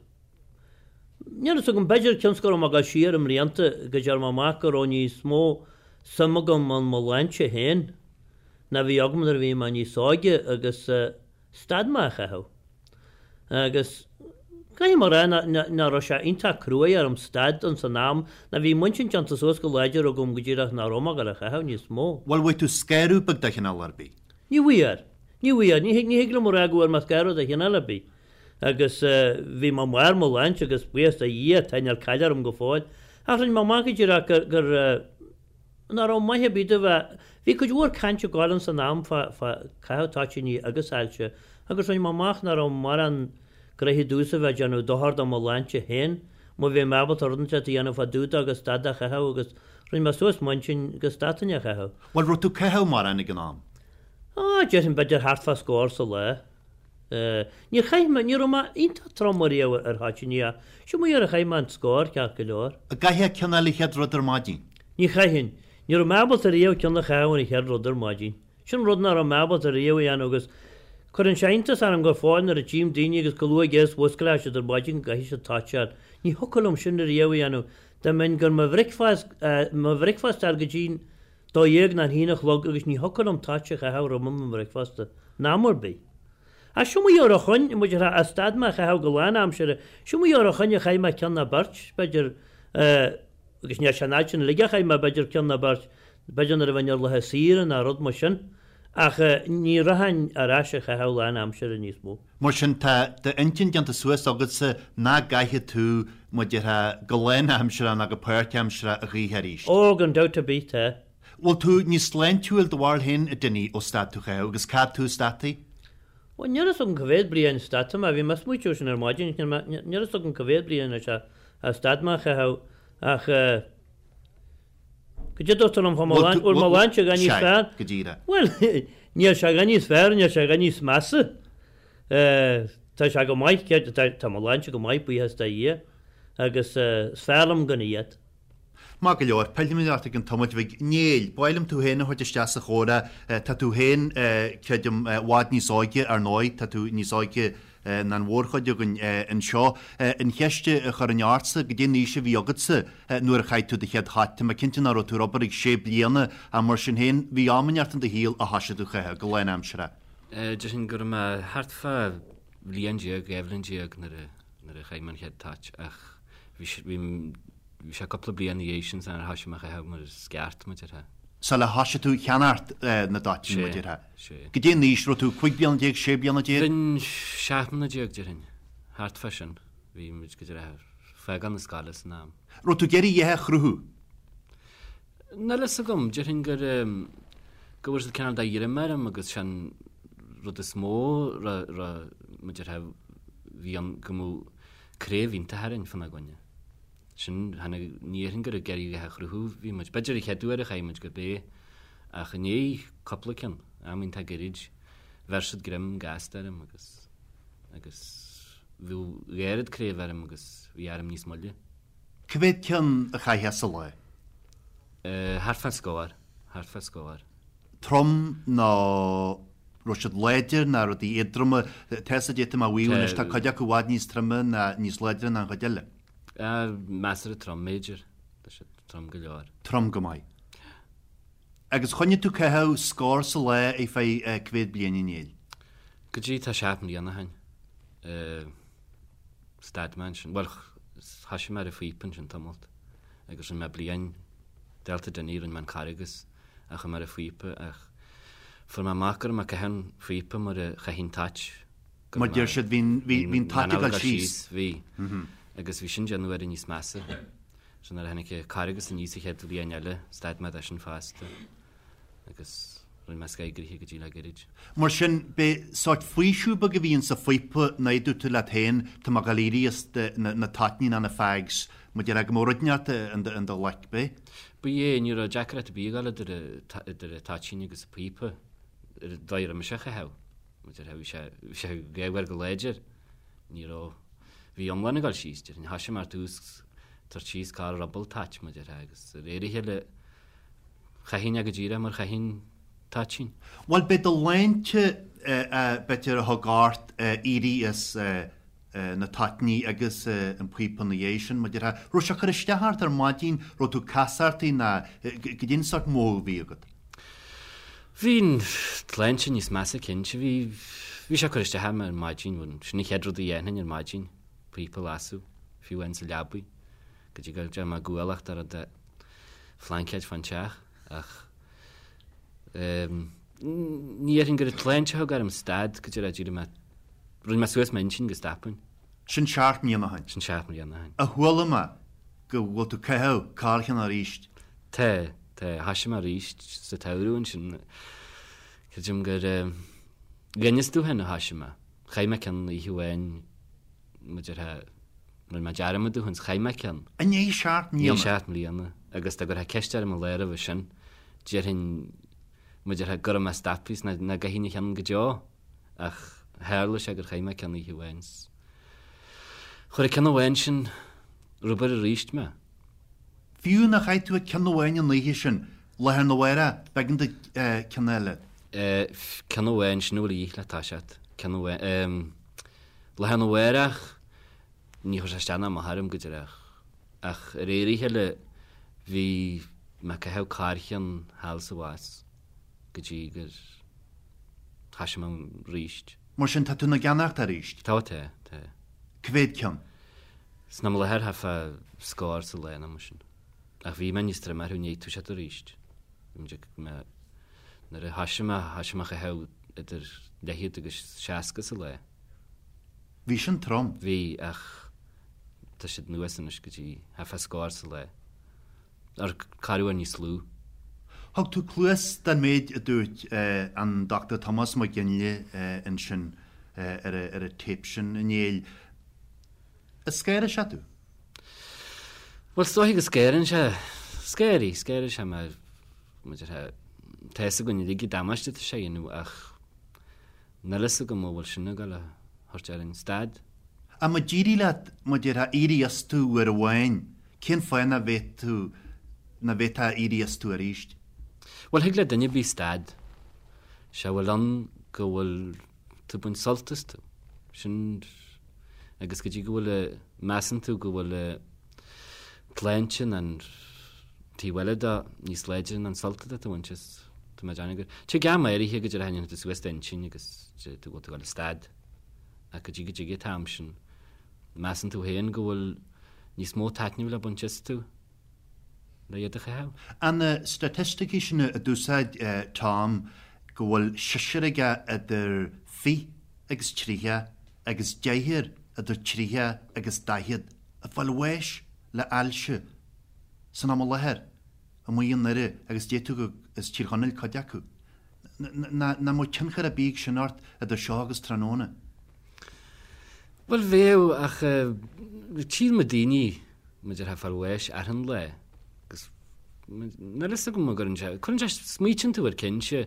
níl fhios agam, b'fhéidir cionn 's go raibh mé ag dul siar i mblianta, go dtearn mé amach go raibh níos mó suim agam in mo shláinte féin ná bhí agam nuair a bhí mé níos óige agus stad mé a chaitheamh. Agus caithfidh mé a rá nach raibh sé iontach cruaidh orm stad ins an am ná bhí m'intinn déanta suas go láidir agam go díreach nach raibh mé ag dul a chaitheamh níos mó. Bhuel, bhfuair tú scaradh beag de chineál ar bith? Ní bhfuair. Ní bhfuair. Ní ní thig liom a rá go bhfuair mé scaradh de chineál ar bith. Agus bhí mé i mbarr mo shláinte agus buíochas do Dhia tá níl caill orm go fóill. Ach rinne mé amach go díreach gur gur nach raibh maith ar bith do bheith. Bhí cuid mhór cainte ag gabháil ins an am fá chaitheamh toitíní agus ailse agus rinne mé amach nach raibh mórán gnoithe domhsa bheith ag déanamh dochar do mo shláinte féin má bhí mé ábalta rud inteacht a dhéanamh fá dtaobh de agus stad de chaitheamh agus rinne mé suas m'intinn go stadfainn a chaitheamh. Bhuel, raibh tú ag caitheamh mórán ag an am? Á, déarfainn b'fhéidir thart fá scór sa lá. Níor chaith mé, ní raibh mé iontach trom ariamh ar thoitíní ach sin mar a chaith mé an scór ceart go leor. An gcaithfeá ceann eile an chéad rud ar maidin? Ní chaithfinn. Ní raibh mé ábalta riamh ceann a chaitheamh an chéad rud ar maidin. Sin rud nach raibh mé ábalta riamh a dhéanamh agus cuireann sé iontas orm go fóill nuair a tchím daoine agus chomh luath agus a mhusclóidh siad ar maidin go gcaithfidh siad toit a fháil. Ní thiocfadh liom sin riamh a dhéanamh. Dá mbeinn gan mo bhricfeast, mo bhricfeast a fháil go dtí'n 12 nó an haon a chlog agus ní thiocfadh liom toit a chaitheamh roimh mo bhricfeasta, in am ar bith. Ach seo mo dheor a choinn, muid a rá, stad mé a chaitheamh go lán-aimsire, seo mo dheor a choinn a chaith mé ceann nó beirt, b'fhéidir, agus níl sé an fhad sin uilig a chaith mé, b'fhéidir ceann nó beirt, b'fhéidir nuair a bheinn ar laetha saoire nó rud mar sin, ach ní rachainn ar ais a chaitheamh lán-aimsire níos mó. Mar sin, tá d'intinn déanta suas agatsa nach gcaithfidh tú, mar a déarfá, go lán-aimseartha ná go páirtaimseartha a choíche arís. Ó, gan dabht ar bith, tá. Bhfuil tú níos sláintiúil do bharúil féin, a Dinny, ó stad tú chaitheamh, agus cá fhad tú stadtaí? Bhuel, níl fhios agam cá mhéad bliain stadta mé, bhí mé ag smaoitiú sin ar maidin, níl fhios agam cá mhéad bliain anois a stad mé a chaitheamh, ach eh, Goidé dúirt tú liom fá mo shláinte, bhfuil mo shláinte a dhath níos fearr? Go díreach. Bhuel, níl sé a dhath níos fearr, níl sé a dhath níos measa. Tá sé go maith, tá mo shláinte go maith, buíochas do Dhia, agus is fearr liom gan iad. Maith go leor, pillfimid ort i gcionn tamaill bhig. Néill, ba mhaith liom tú féin a thabhairt isteach sa chomhrá. Tá tú féin, creidim, i bhfad níos óige, ar ndóigh, tá tú níos óige ná an mhórchuid againn anseo. An cheist a chuirfinn ortsa, goidé an aois a bhí agatsa nuair a chaith tú do chéad thoit? Tá mé cinnte nach raibh tú ar obair ag sé bliana ach mar sin féin, bhí am inteacht in do shaol a thoisigh tú a chaitheamh go lánaimseartha. Déarfainn go raibh mé thart fá bhliain déag, 12 bhliain nuair a nuair a chaith mé an chéad toit ach bhí bhí Bhí sé cúpla bliain ina dhiaidh sin sular thoisigh mé a chaitheamh mar is ceart, mar a déarfá. Sula thoisigh tú cheannacht na dtoitíní, mar a déarfá. Sea. Goidé an aois, raibh tú 15 bliana, 16 bliana? Bhínn 17 mbliana déarfainn, thart fá sin. Bhí muid go díreach ag fágáil na scoile san am. Raibh tú ag iarraidh a dhath a chruthú? Níl fhios agam, déarfainn gur go bhfuair siad cineál de ghreim orm agus sin rud is mó raibh, raibh, mar a déarfá, bhí ann go mbeadh craobh iontach orainn fána gcoinne. Sin, tháinig, ní dhéarfainn gur ag iarraidh a dhath a chruthú a bhí muid. B'fhéidir an chéad uair a chaith muid gurb é, ach i ndiaidh cúpla ceann, am iontach gairid, bheir siad greim gasta orm agus, agus bhíodh dhá oiread craobh orm agus bhí orm níos moille. Cá mhéad ceann a chaithfeá sa lá? Thart fán scór, thart fá scór. Trom nó raibh siad láidir ná rudaí éadroma? Tá 'fhios a'd, tá mé a mhaíomh anois, tá cuid acu i bhfad níos troime ná níos láidre ná an chuid eile. Measartha trom, b'fhéidir. Tá siad trom go leor. Trom go maith. Agus choinnigh tú caitheamh scór sa lá ar feadh cá mhéad bliain a Néill? Go dtí tá seacht mbliana ó shin. Stad mé ansin. Bhuel, thoisigh mé ar an phíopa ansin tamalt. Agus rinne mé bliain, Delta Dinny, rinne mé an Carghas ach chuaigh mé ar an phíopa ach fuair mé amach go raibh mé ag caitheamh an phíopa mar a chaithfinn toit. Mar deir siad, bhí an toit ag dul síos. Bhí. Agus bhí sin déanamh uair níos measa. So nuair a tháinig an Carghas aníos an chéad bhliain eile, stad mé de sin fosta. Agus rinne mé scaigraithe go dtí le gairid. Mar sin, b'é sórt faoiseamh beag a bhí insa phíopa ná dúirt tú leat féin, tá mé ag dul éirí as na toitní ná na fags, mar déarfá go mbeadh rud inteacht in do ghlaic, b'é? Ba é, ní raibh deacracht ar bith ag dul idir an toitín agus an píopa, ar an dóigh a raibh mise á chaitheamh. Bhí sé, bhí sé gaofar go láidir. Ní raibh, bhí iomlán ag dul síos, déarfainn. Thoisigh mé ar tús tabhairt síos corr ruball toit, mar a déarfá, agus de réir a chéile chaithfinn é go díreach mar chaithfinn toitín. Bhuel, b'é do shláinte, b'fhéidir, a thug ort éirí as na toitní agus an píopa ina dhiaidh sin, mar a déarfá. Raibh sé ag cur isteach ort ar maidin, raibh tú casartaí ná goidé an sórt mothú a bhí agat? Bhí an tsláinte níos measa cinnte. Bhí, bhí sé ag cur isteach orm ar maidin, bhuel, sin an chéad rud a dhéanfainn ar maidin, píopa a lasadh, fiú amháin sa leabaidh, go dtí go dtéadh mé ag gualacht ar rud phlaincéid fán teach, ach ehm, ní dhéarfainn gur an tsláinte a thug orm stad go dtí d'éirigh mé, rinne mé suas m'intinn go stopfainn. Sin seacht mbliana ó shin. Sin seacht mbliana ó shin. Ach chuala mé go bhfuil tú ag caitheamh corrcheann arís. Tá, tá. Thoisigh mé arís sa tsamhradh ansin. Creidim gur dh'innis tú féin a thoisigh mé. Chaith mé ceann oíche amháin, mar a déarfá, rinne mé dearmad dó féin, chaith mé ceann. I ndiaidh seacht mbliana? I ndiaidh seacht mbliana. Agus dá gcuirfeá ceist orm an lá roimhe sin, déarfainn. Mar a déarfá go raibh mé stoptha is nach gcaithfinn a cheann go deo ach tharla sé gur chaith mé ceann oíche amháin 's chuir an ceann amháin sin rubair aríst mé. Fiú nár chaith tú ach ceann amháin an oíche sin, lá arna mhárach, b'éigean duit ceann eile. Ceann amháin, sin a bhfuil a dhíth le toiseacht. Ceann amháin. Lá arna mhárach, ní chuir sé isteach ná amach orm go díreach. Ach ar éirigh eile, bhí mé ag caitheamh corrcheann thall is abhus go dtí gur thoisigh mé aríst. Mar sin, tá tú ina gceannacht aríst? Tá, tá, tá. Cá mhéad ceann? San am i láthair, thart fá scór sa lá nó mar sin. Ach bhí mé níos troime orthu i ndiaidh toiseacht aríst. Bhí mé, nuair a thoisigh mé, thoisigh mé a chaitheamh idir leathchéad agus 60 sa lá. Bhí sin trom. Bhí, ach tá siad anuas anois go dtí thart fá scór sa lá. Or corruair níos lú. Thug tú cluas don méid a dúirt an Dr Tomás Mac Fhionnghaile ansin ar an téip sin, a Néill. An scanraigh sé tú? Bhuel, is dóiche go scanraíonn sé, scanraigh, scanraigh sé mé, mar a déarfá, tá fhios againn uilig an damáiste atá sé a dhéanamh ach níl fhios agam an bhfuil sin ag dul a thabhairt orainn stad. Ach má d'éirigh leat, mar a déarfá, éirí astu uair amháin, cén fáth nach bhféadfadh tú, nach bhféadfá éirí astu arís? Bhuel, thig le duine ar bith stad. Sé a bhfuil ann go bhfuil tú ag baint sult astu. Sin agus go dtí go bhfuil, measann tú go bhfuil tsláinte nó an taobh eile de níos láidre ná an sult atá tú a bhaint as, tá mé ag déanamh gur, tig am áirithe go dtéann tú suas d'intinn agus tú bhfuil tú ag dul a stad ach go dtí go dtig an t-am sin, measann tú féin go bhfuil níos mó taitnimh le baint astu le iad a chaitheamh. An na staitisticí sin a d'úsáid Tom go bhfuil seisear aige idir fich agus triocha agus deichniúr idir triocha agus daichead ag fáil bháis le ailse san am i láthair amuigh i nDoire agus d'fhéadfadh gur as Tír Chonaill cuid acu. Nach mbeadh tionchar ar bith ag sin ort idir seo agus tráthnóna? Bhuel bheadh ach tchíonn muid daoine mar a déarfá ag fáil bháis achan lá agus níl fhios agam an gcuireann sé, cuireann sé, smaoitíonn tú air cinnte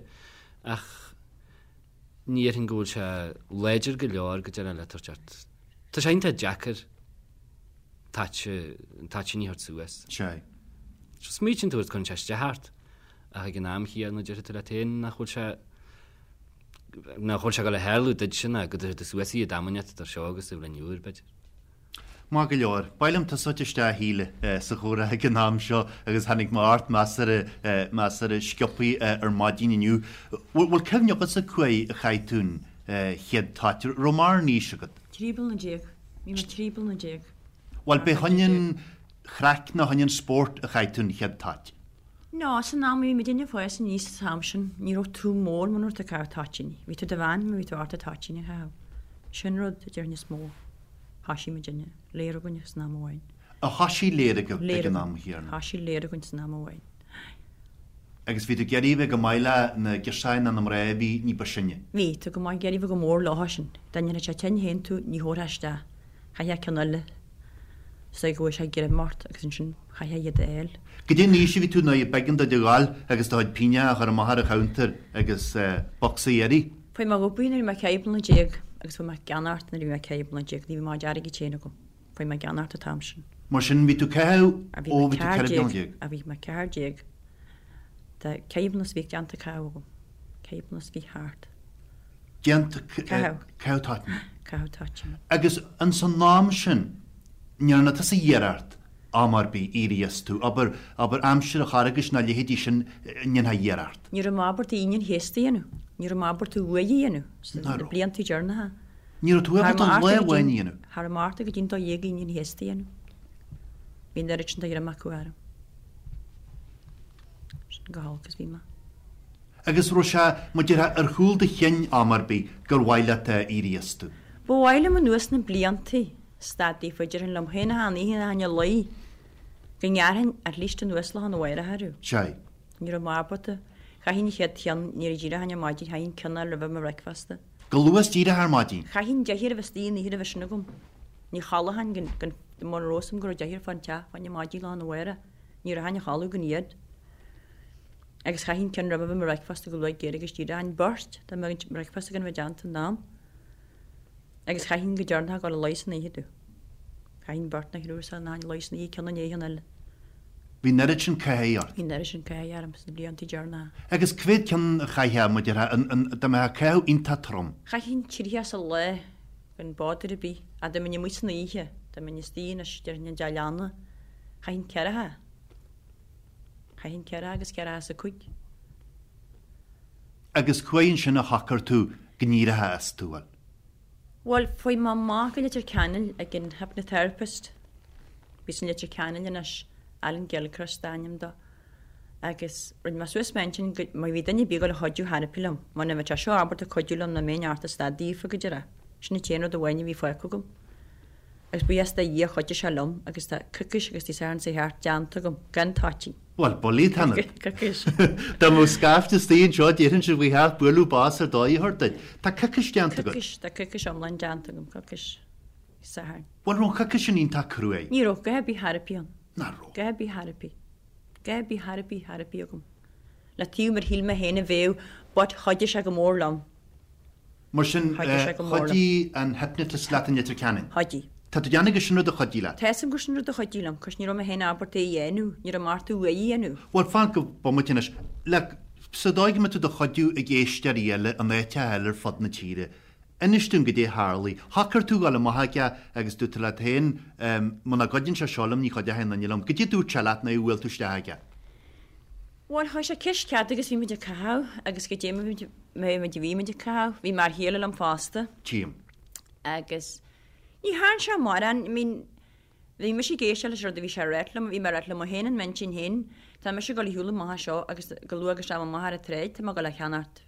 ach ní dhéarfainn go bhfuil sé láidir go leor go deireadh le tabhairt ort. Tá sé iontach deacair toit, an toitín a thabhairt suas. Sea. Smaoitíonn tú air cuireann sé isteach ort ach ag an am chéanna déarfaidh tú leat féin nach bhfuil sé nach bhfuil sé ag dul a tharlú duitse ná go dtabharfaidh tú suas iad am inteacht idir seo agus an bhliain úr, b'fhéidir. Maith go leor. B'áil liom tosacht isteach a Shíle sa chomhrá ag an am seo agus tháinig mé ort measartha, measartha sciobthaí ar maidin inniu. Bhfuil cuimhne agatsa cá huair a chaith tú an chéad toit? Raibh mórán aois agat? 13 bliana. Bhí mé 13 bliana. Bhuel, b'é chun an chraic nó chun an spóirt a chaith tú an chéad toit? No, san am a bhí muidinne ag fás aníos an t-am sin, ní raibh tú mór muna raibh tú ag caitheamh toitíní. Bhí tú i do bhean má bhí tú ábalta toitíní a chaitheamh. Sin rud a déarfainn is mó. Thoisigh muidinne, léir againn san am amháin. A thoisigh léir agaibh ag an am chéanna? Thoisigh léir againn san am amháin. Agus bhí tú ag iarraidh a bheith go maith le na girseachaí nó na mná a bhí ní ba sine? Bhí tú go maith, ag iarraidh a bheith go mór leo sin. Dá ndéanfadh sé tinn féin tú, ní thabharfá isteach. Chaithfeá ceann eile. Is dóigh go bhfuair sé greim ort agus ansin chaithfeá iad a fháil. Goidé an aois a bhí tú nuair a b'éigean duit a ghabháil agus do chuid pingneacha a chur amach ar an chuntar agus bocsa a iarraidh? Fuair mé dhubh nuair a bhí mé 14 bliana agus fuair mé ceannacht nuair a bhí mé 14 bliana. Ní bhí mo chuid airgid féin agam. Fuair mé ceannacht an t-am sin. Mar sin bhí tú caitheamh ó bhí tú 14 bliana. A bhí mé 14. Tá 14 bliana is bhí déanta caitheamh agam. 14 bliana is bhí thart. Déanta caitheamh toitíní. Caitheamh toitíní. Agus ins an am sin, ní dhearna tusa iarracht am ar bith éirí astu, abair, abair aimsir an Charghais nó a leithéidí sin, ndéanfá iarracht? Ní raibh mé ábalta Aoine an Chéasta a dhéanamh. Ní raibh mé ábalta uaidh a dhéanamh sna blianta deireanacha. Ní raibh tú ábalta lá amháin a dhéanamh? Cha raibh mé ábalta go dtí an 12 Aoine an Chéasta a dhéanamh. Bhí an oiread sin de ghreim acu orm. Sin go holc is bhí mé. Agus raibh sé, mar a déarfá, ar chúl do chinn am ar bith gur mhaith leat éirí astu? Ba mhaith liom anuas na bliantaí stad daofa, déarfainn liom féin achan oíche nuair a théinn a luí, go ngearrfainn at least anuas lá arna mhárach orthu. Sea. Ní raibh mé ábalta. Chaithfinn an chéad cheann, nuair a d'éireochainn ar maidin, chaithfinn ceann a fháil roimhe mo bhreicfeasta. Go luath díreach ar maidin? Chaithfinn deifir a bheith istigh an oíche roimhe sin agam. Ní chodlóchainn gan, mura raibh fhios agam go raibh deifir fán teach fá choinne maidin lá arna mhárach. Ní rachainn a chodladh gan iad. Agus chaithfinn ceann roimhe mo bhreicfeasta go luath géar agus díreach an beirt dá mbeadh an breicfeasta gan a bheith déanta in am. Agus chaithfinn go deireanach a dhul a luí san oíche domh. Chaithfinn beirt nó thriúr san a luí san oíche ceann i ndiaidh an eile. Bhí an oiread sin caithimh ort. Bhí an oiread sin caithimh orm sna blianta deireanacha. Agus cá mhéad ceann a chaithfeá, mar a déarfá, an, an, dá mbeadh caitheamh iontach trom? Chaithfinn tríocha sa lá gan bother ar bith. Ach dá mbeinn amuigh san oíche, dá mbeinn istigh anois, déarfainn i dteach leanna, chaithfinn ceathracha. Chaithfinn ceathracha agus ceathracha is a cúig. Agus cá huair ansin a shocair tú go n-éireofá as, bhuel? Bhuel, fuaigh mé amach go Leitir Ceanainn ag an hypnotherapist. Bhí san Leitir Ceanainn anois, Alan Gilchrist d'ainm dó. Agus rinne mé suas m'intinn go, má bhí duine ar bith ag dul a chuidiú therapy liom, muna mbeadh sé seo ábalta cuidiú liom ná mbeinn ort a stad daofa go deireadh. Sin an t-aon rud amháin a bhí fágtha agam. Agus buíochas do Dhia chuidigh sé liom agus tá coicís agus Dé Sathairn seo thart déanta agam gan toitín. Bhuel, bullaí atá ionat. Coicís. Dá mbeadh scaifte istigh anseo déarfainnse faoi theach bualadh bos ar dóigh a thabhairt duit. Tá coicís déanta agat. Coicís, tá coicís iomlán déanta agam, coicís Sathairn. Bhuel, raibh an choicís sin iontach cruaidh? Ní raibh, dhath ar bith therapy ann. Nach raibh? Dhath ar bith therapy. Dhath ar bith therapy, therapy agam. Le taobh mar shíl mé féin a bheadh but chuidigh sé go mór liom. Mar sin, chuidigh an hypnotist leat in Leitir Ceanainn? Chuidigh. Tá tú ag déanamh gur sin rud a chuidigh leat? Tá fhios agam gur sin rud a chuidigh liom, 'cause ní raibh mé féin ábalta é a dhéanamh, ní raibh mé ort uaidh a dhéanamh. Bhuel, fan go bomaite anois. Like, sa dóigh go mbeidh tú do chuidiú ag éisteoirí eile in áiteacha eile ar fud na tíre, inis dúinn goidé a tharlaigh. Shocair tú dhul amach aige agus dúirt tú leat féin, muna gcuidíonn sé seo liom, ní chuideoidh aon duine liom. Goidé a dúirt sé leat nuair a bhuail tú isteach aige? Bhuel, chuir sé ceist cead agus bhí muid ag caitheamh agus goidé mar muid a bhí muid ag caitheamh, bhí m'fhear chéile liom fosta. Tchím. Agus ní thearn sé mórán, I mean, bhí mise ag éisteacht leis an rud a bhí sé a ráit liom, bhí mé ag ráit liom féin in m'intinn féin, tá mise ag dul a shiúl amach as seo agus go luath agus tá mé amach ar an tsráid, tá mé ag dul a cheannacht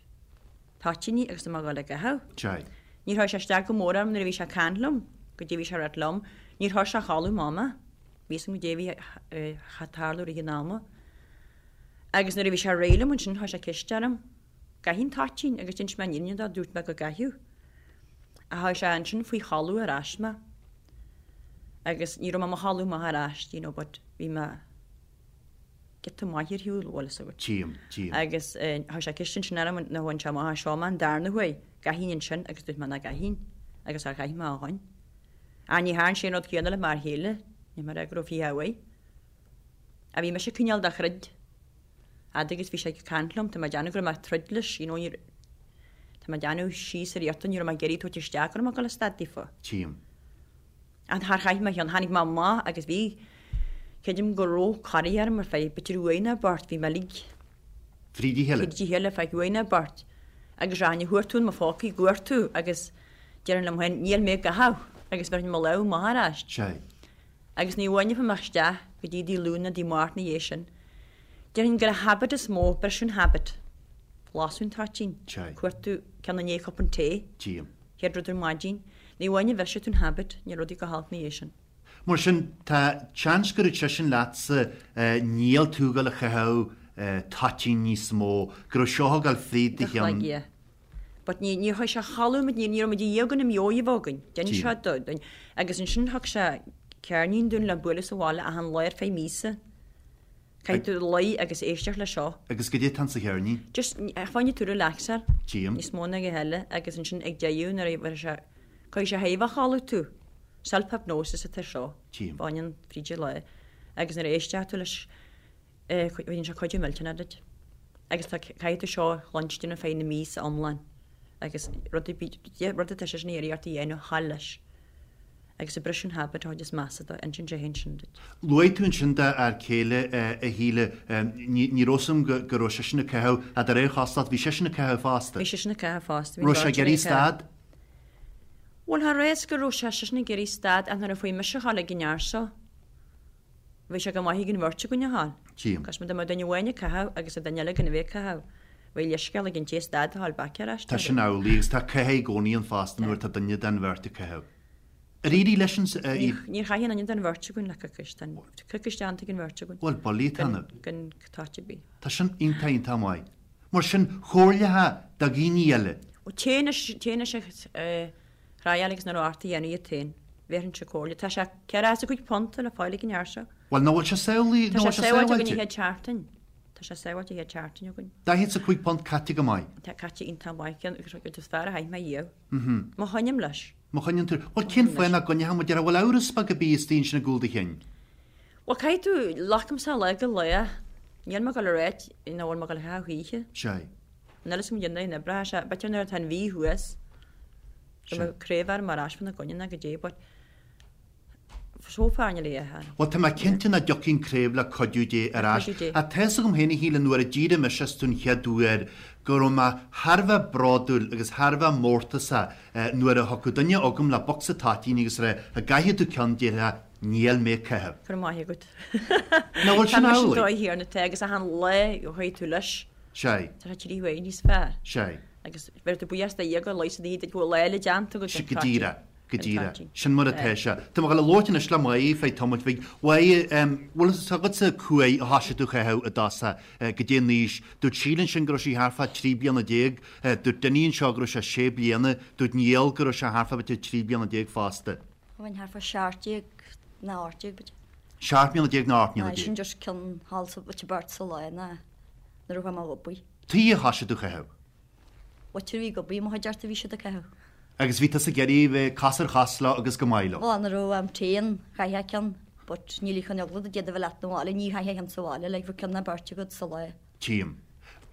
toitíní agus tá mé ag dul a gcaitheamh. Sea. Níor chuir sé isteach go mór orm nuair a bhí sé ag caint liom, goidé a bhí sé a ráit liom, níor chuir sé a chodladh amach mé. Bhí fhios agam goidé a bhí ag tarlú i rith an ama. Agus nuair a bhí sé réidh liom ansin chuir sé ceist orm, gcaithfinn toitín agus d'inis mé an fhírinne dó, dúirt mé go gcaithfeadh. Ach chuir sé ansin faoi chodladh ar ais mé. Agus ní raibh mé i mo chodladh amach ar ais, you know, but bhí mé giota maith ar shiúl, bhfuil fhios agat. Tchím, tchím. Agus chuir sé ceist ansin orm nuair a bhain sé amach as seo mé an darna huair, gcaithfinn ansin agus dúirt mé nach gcaithfinn agus char chaith mé ó shoin. Ach ní thearn sé an rud céanna le m'fhear chéile, ní mar go raibh fiche uaidh. Ach bhí mise cineál de throid. Fhad agus bhí sé ag caint liom, tá mé ag déanamh go raibh mé ag troid leis, you know, ní, tá mé ag déanamh síos ar iarrta, ní raibh mé ag iarraidh tabhairt isteach go raibh mé ag dul a stad daofa. Tchím. Ach char chaith mé cheann, tháinig mé amach agus bhí, creidim go raibh corraí orm ar feadh b'fhéidir uair nó beirt, bhí mé uilig. Fríd a chéile. Fríd a chéile ar feadh uair nó beirt. Agus rachainn a chuartú in mo phócaí, i gcuartú agus déarfainn liom féin, níl mé ag caitheamh agus bheirfinn mo lámh amach ar ais. Sea. Agus ní bhainfeadh mé isteach go dtí Dé Luain nó Dé Máirt ina dhiaidh sin. Déarfainn gur an habit is mó, briseadh an habit. Lasadh an toitín. Sea. Cuartú ceann i ndiaidh cupán tae. Tchím. Chéad rud ar maidin. Ní amháin a bhrisfidh tú an habit, níl rudaí go holc ina dhiaidh sin. Mar sin, tá seans go raibh seisean leatsa, níl tú ag dul a chaitheamh toitín níos mó, go raibh seo ag dul fríd do cheann. Yeah. But ní, níor chuir sé a chodladh muid, ní, ní raibh muid i ndiaidh an mheabhair a bheith againn. D'inis sé dúinn. Agus ansin thug sé ceirnín dúinn le bualadh sa bhaile achan lá ar feadh míosa. Caithfidh tú luí agus éisteacht le seo. Agus goidé atá sa cheirnín? Just, fá choinne tú relaxáil. Tchím. Níos mó ná a dhath eile agus ansin ag deireadh nuair a bheidh sé, cuirfidh sé thaobh a chodladh tú. Self-hypnosis atá seo. Tchím. Baineann fríd an lá. Agus nuair a éisteas tú leis, bíonn sé cuidiú millteanach duit. Agus tá, caithfidh tú seo a chluinstin ar feadh na míosa iomlán. Agus rud ar bith, rud atá seisean ag iarraidh ort a dhéanamh, thall leis. Agus ag briseadh an habit a chuid is measa dó, insíonn sé féin sin duit. Luaigh tú ansin do fhear céile, a Shíle, ní raibh fhios agam go raibh seisean ag caitheamh, ach de réir chosúlacht, bhí seisean ag caitheamh fosta. Bhí seisean ag caitheamh fosta. Raibh sé ag iarraidh stad? Bhuel, cha raibh fhios go raibh sé seisean ag iarraidh stad ach nuair a fuair mise a ghabháil ag an fhear seo, bhí sé go maith ag an bheirt againn a ghabháil. Tchím. Cos dá mbeadh duine amháin ag caitheamh agus an duine eile gan a bheith ag caitheamh, bheadh leithscéal ag an té stad a ghabháil back ar ais. Tá sin amhlaidh agus tá caitheamh i gcónaí ann fosta nuair atá duine den bheirt ag caitheamh. Ar éirigh leis an. Níor chaith aon duine den bheirt againn le coicís. Tá coicís déanta ag an bheirt againn. Bhuel, bullaí atá ionat. Gan toit ar bith. Tá sin iontach iontach maith. Mar sin, chomhairleofá do dhaoine eile. Ó, téigh anois, téigh anois a thriáil agus nuair ort a dhéanamh iad féin. Bhéarfainnse comhairle. Tá sé £45 le fáil ag an fhear seo. Bhuel, nach bhfuil sé samhlaí, Tá sé sábháilte againn an chéad seachtain. Tá sé sábháilte an chéad seachtain againn. £45 caite go maith. Tá caite iontach maith, ceann agus rud is fearr a chaith mé riamh. Má choinním leis. Má choinníonn tú. Bhuel, cén fáth nach gcoinneochá mar a déarfá, bhfuil amhras beag ar bith istigh ansin i gcúl do chinn? Bhuel, caithfidh tú, glacaimse lá go lá. Níl mé ag dul a ráit nach bhfuil mé ag dul a chaitheamh choíche. Sea. Níl a fhios agam cén dóigh a n-oibreoidh sé. B'fhéidir nuair atá an mhí thuas, go mbeidh craobh orm ar ais fána gcoinne nó goidé, but so far níl a fhios. Bhuel, tá mé cinnte nach dtiocfaidh an craobh le cuidiú Dé ar ais. Cuidiú Dé. Ach tá fhios agam féin a Shíle nuair a d'éirigh mise as tú an chéad uair go raibh mé thar a bheith bródúil agus thar a bheith mórtasach nuair a thiocfadh duine chugam le bocsa toitíní agus a rá, an gcaithfidh tú ceann déarfá, níl mé ag caitheamh. Go raibh maith agat. Nach bhfuil sin Tá mise an amhlaidh? dóigh chéanna atá agus achan lá a chuaigh tú leis. Sea. Tá sé trí huaire níos fearr. Sea. Agus bheir tú buíochas do Dhia go leigheasfaidh Dia duit go bhfuil lá eile déanta agat. Sea, go díreach. Go díreach. Sin mar atá sé. Tá mé ag dul a labhairt anois le Máire feadh tamaill bhig. Mháire, bhfuil fhios agatsa cá huair a thoisigh tú a chaitheamh i dtosach, goidé an aois. Dúirt Síle ansin go raibh sí thart fá 13 bliana. Dúirt Dinny anseo go raibh sé sé bliana. Dúirt Niall go raibh sé thart fá b'fhéidir 13 bliana fosta. Bheinn thart fá 17 nó 18 b'fhéidir. 17 mbliana nó 18 mbliana. Aye, sin just ceann thall sa b'fhéidir beirt sa lá ná nuair a chuaigh mé ag obair. Tuige a thoisigh tú a chaitheamh? Muintir a bhí ag obair i mo chuideachta bhí siad ag caitheamh. Agus bhí tusa ag iarraidh bheith cos ar chos leo agus go maith leo. Bhuel, nuair a raibh am tae ann, chaithfeá ceann, but níl chun eagla do d'fhéadfadh a bheith leat 'na bhaile, ní chaithfeá ceann sa bhaile, like bheadh ceann nó beirt agat sa lá. Tchím.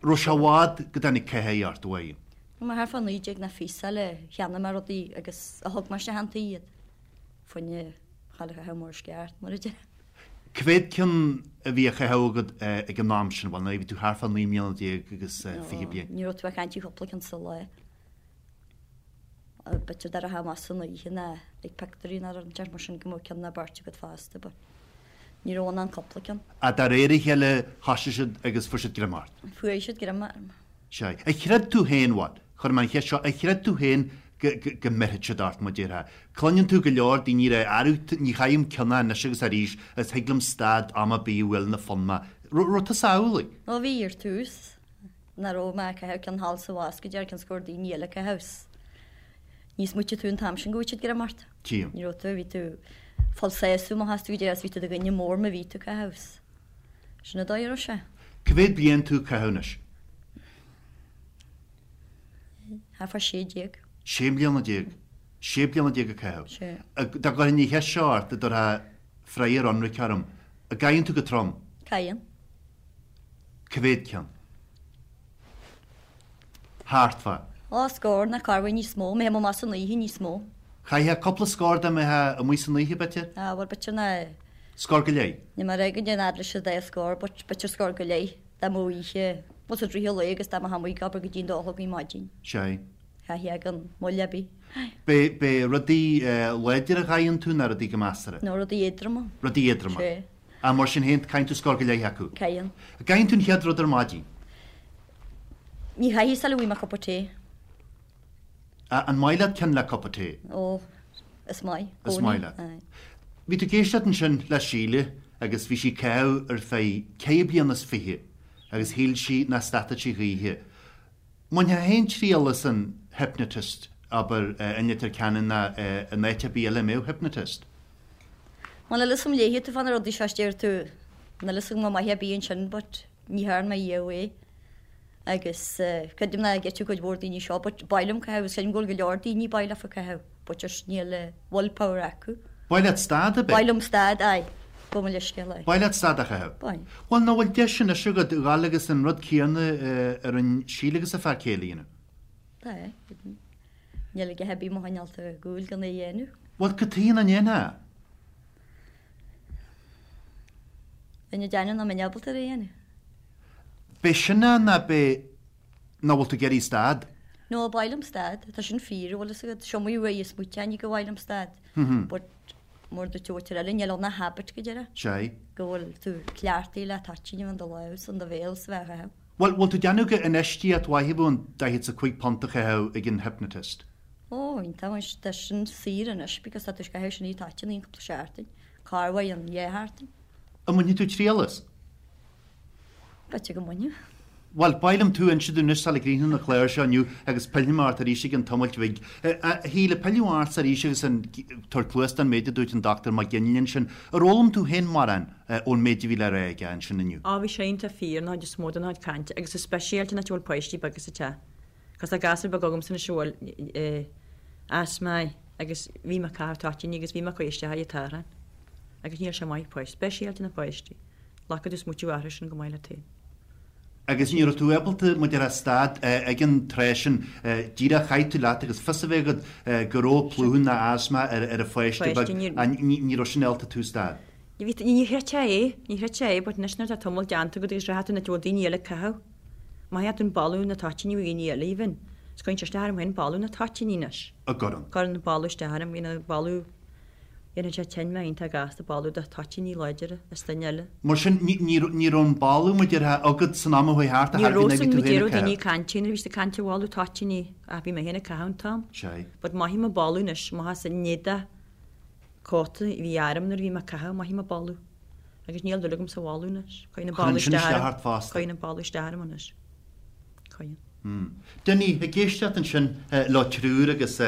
Raibh sé i bhfad go dtáinig caitheamh ort, uaidh? Bhí mé thart fá 19 nó fiche sular cheannaigh mé rudaí agus a thug mé isteach an tí iad. Fá choinne a ghabháil a chaitheamh mar is ceart, mar a déarfá. Cá mhéad ceann a bhí á chaitheamh agat ag an am sin? Bhuel, nuair a bhí tú thart fá 19 mbliana agus 20 bliain. Ní raibh tú ag caint ar chúpla ceann sa lá. B'fhéidir dá rachfá amach san oíche ná ag pictiúirí ná rud inteacht mar sin go mbeadh ceann nó beirt agat fosta but ní raibh ann ach cúpla ceann. Ach de réir a chéile thoisigh siad agus fuair siad greim ort. Fuair siad greim orm. Sea. Ar chreid tú féin, bhuel, cuirfidh mé an cheist seo, ar chreid tú féin go, go, go mbeirfeadh siad ort, mar déarfá? Cluineann tú go leor daoine ag rá, arú, ní chaithim ceann anois agus arís agus thig liom stad am ar bith a bhuaileann an fonn mé. Raibh, raibh tusa amhlaidh? Ó bhí ar tús, nach raibh mé ag caitheamh ceann thall is abhus go deireadh cionn is go raibh daoine eile ag caitheamh 's ní smaoitigh tú an t-am sin go bhfaigheadh siad greim ort. Tchím. Ní raibh tú, bhí tú ag fáil sásamh amach astu go deireadh 's bhí tú i do dhuine mór má bhí tú ag caitheamh 's. Sin an dóigh a raibh sé. Cá mhéad bliain tú ag caitheamh anois? Thart fá 16. 16 mbliana. 16 bliana ag caitheamh. Sé. Dá gcuirfinn an cheist seo ort, an dtabharfá freagra ionraic orm, an gcaitheann tú go trom? Caitheann. Cá mhéad ceann? Thart fá. Ó, scór nó corruair níos mó. Má théim amach san oíche níos mó. Chaithfeá cúpla scór dá mbeifeá amuigh san oíche, b'fhéidir? Á, bhuel, b'fhéidir ná. Scór go leith. Níl mé ag rá go ndéan fhad leis an dá scór, but b'fhéidir scór go leith dá mbeadh oíche, bhuel, sa dtríú lae agus dá mbeifeá amuigh ag obair go dtí an dó a chlog ar maidin. Sea. Chaithfeá gan moill ar bith. B'é, b'é rudaí láidre a chaitheann tú ná rudaí go measartha? No, rudaí éadroma. Rudaí éadroma. Sea. Ach mar sin féin, caitheann tú scór go leith acu. Caitheann. An gcaitheann tú an chéad rud ar maidin? Ní chaithfidh sula bhfaighidh mé cupa tae. An maith leat ceann le cupa tae? Ó, is maith. Is maith leat. Aye. Bhí tú ag éisteacht ansin le Síle agus bhí sí ag caitheamh ar feadh ceithre bliana is fiche agus shíl sí nach stadfadh sí choíche. Mbainfeá féin triail as an hypnotist, abair, i Leitir Ceanainn ná in áit ar bith eile a mbeadh hypnotist? Bhuel, níl fhios agam léifidh tú fá na rudaí seo is deir tú, níl fhios agam an maith ar bith ansin but ní thearn mé riamh é. Agus creidim nach gceitfidh cuid mhór daoine seo but b'áil liom caitheamh agus creidim go bhfuil go leor daoine b'áil leofa caitheamh but just níl will power acu. B'áil leat stad, ab é? B'áil liom stad, aye. Gabh mo leithscéal, aye. B'áil leat stad a chaitheamh? B'áil. Bhuel, nach bhfuil deis anois agat dhul agus an rud céanna a rinne Síle agus a fear céile a dhéanamh? Tá, aye. Níl a dhath ar bith mo choinneáil ar gcúl gan é a dhéanamh. Bhuel, cad chuige nach ndéanfá? Bheinn ag déanamh nach mbeinn ábalta ar a dhéanamh. B'é sin é ná b'é nach bhfuil tú ag iarraidh stad? No, b'áil liom stad. Tá sin fíor, an bhfuil fhios agat. Is iomaí uair a smaoitigh mé go b'áil liom stad. But mar a dúirt an mhuintir eile, níl ann ach habit go deireadh. Sea. Go bhfuil tú cleachtaithe le toitín a bheith in do lámh is in do bhéal is a bheith á chaitheamh. Bhuel, bhfuil tú ag déanamh gur infheistíocht mhaith a bheadh an £45 a chaitheamh ag an hypnotist? Ó, iontach, anois tá sin saor anois because tá tú ag caitheamh sin toitín aon cúpla seachtain, corruair an dhá sheachtain. An mbainfidh tú triail as? B'fhéidir go mbainfeadh. Bhuel, ba mhaith liom tú a inse dúinn anois sula gcríochnú an clár seo inniu agus pillfidh mé ort arís i gcionn tamaill bhig. A Shíle, pilleadh ortsa arís agus an tabhairt cluas don méid a dúirt an Dr Mac Ginlea ansin. Ar fhoghlaim tú féin mórán ón méid a bhí le rá aige ansin inniu? Á, bhí sé iontach fíor an chuid is mó den chuid cainte agus is speisialta an áit a bhfuil páistí beaga sa teach. Cos tá gasúr beag agamsa anois a bhfuil asma agus bhí mé ag caitheamh toitíní agus bhí mé ag cur isteach ar an tárthán agus níl sé maith páistí, speisialta na páistí. Glacfaidh tú smaoitiú orthu sin go maith leat féin. Agus ní raibh tú ábalta, mar a déarfá, stad ag an tráth sin, díreach chaith tú leat agus fios a bheith agat go raibh plúchadh ná asma ar an pháiste beag, ní raibh sin ábalta tú stad. Ní chreidfeá é, ní chreidfeá é, but anois nuair atá tamall déanta agat agus rachaidh tú an áit a bhfuil daoine eile ag caitheamh, mothaíonn tú an boladh na toitíní ó dhaoine eile even, is cuireann sé isteach orm féin boladh na toitíní anois. A gcuireann. Cuireann an boladh isteach orm, you know, boladh Dhéanfadh sé tinn mé iontach gasta boladh de toitíní láidire is duine eile. Mar sin, ní raibh an boladh, mar a déarfá, agat san am a chuaigh thart a Ní raibh san, mar déarfadh daoine ag caint nuair a bhí siad ag caint ar bholadh toitíní ach bhí mé féin ag caitheamh an t-am. Sea. But mothaím an boladh anois, mothaím an éadach cóta a bhí orm nuair a bhí mé ag caitheamh, mothaím an boladh. Agus níl dúil agam sa bholadh anois. Cuireann an boladh isteach orm. ort fosta. Cuireann an boladh isteach orm anois. Cuireann. Dinny, ag éisteacht ansin leo triúr agus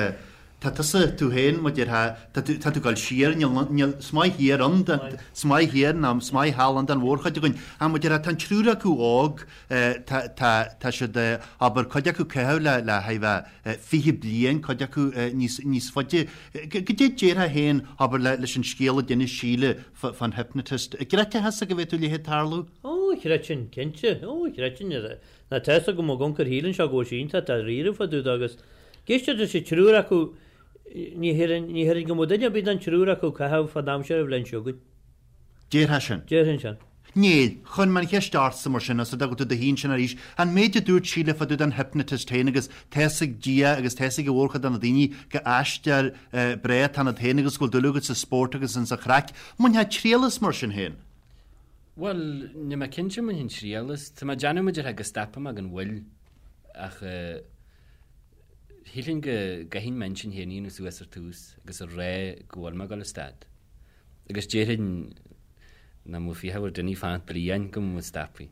tá tusa, tú féin, mar a déarfá, tá tú, tá tú ag dul siar, níl, níl, is maith thiar ann, is maith thiar ná is maith thall ann don mhórchuid againn. Ach mar a déarfá, tá an triúr acu óg, tá, tá, tá siad, abair, cuid acu ag caitheamh le, le haghaidh bheith 20 bliain, cuid acu níos, níos faide. Goidé a déarfá féin, abair, le, leis an scéal a d'inis Síle fán hypnotist. An gcreidfeá thusa go bhféadfadh a leithéid tarlú? Ó, chreidfinn, cinnte. Ó, chreidfinn. Ná tá fhios agam ag amharc ar Shíle anseo go bhfuil sí iontach dáiríre fá dtaobh de agus ag éisteacht leis an triúr acu ní théarfainn ní théarfainn go mbeadh duine ar bith den triúr acu ag caitheamh fán aimsir an bhliain seo chugainn. Déarfá sin? Déarfainn sin. Níl. Chuir mé an cheist ortsa mar sin, os rud é go bhfuil tú i do shuí ansin arís, an méid a dúirt Síle fá dtaobh den hypnotist féin agus tá fhios ag Dia agus tá fhios ag an mhórchuid de na daoine go aisteoir breá atá ionat féin agus go bhfuil dúil agat sa spórt agus insa chraic. Mbainfeá triail as mar sin féin? Bhuel, níl mé cinnte an mbainfinn triail as. Tá mé ag déanamh mar a déarfá go stopfaidh mé gan mhoill ach shílfinn go gcaithfinn m'intinn féin a dhéanamh suas ar tús agus a rá go bhfuil mé ag dul a stad. Agus déarfainn nach mbeadh fiacha ar duine fanacht bliain go mbeadh mé stoptha.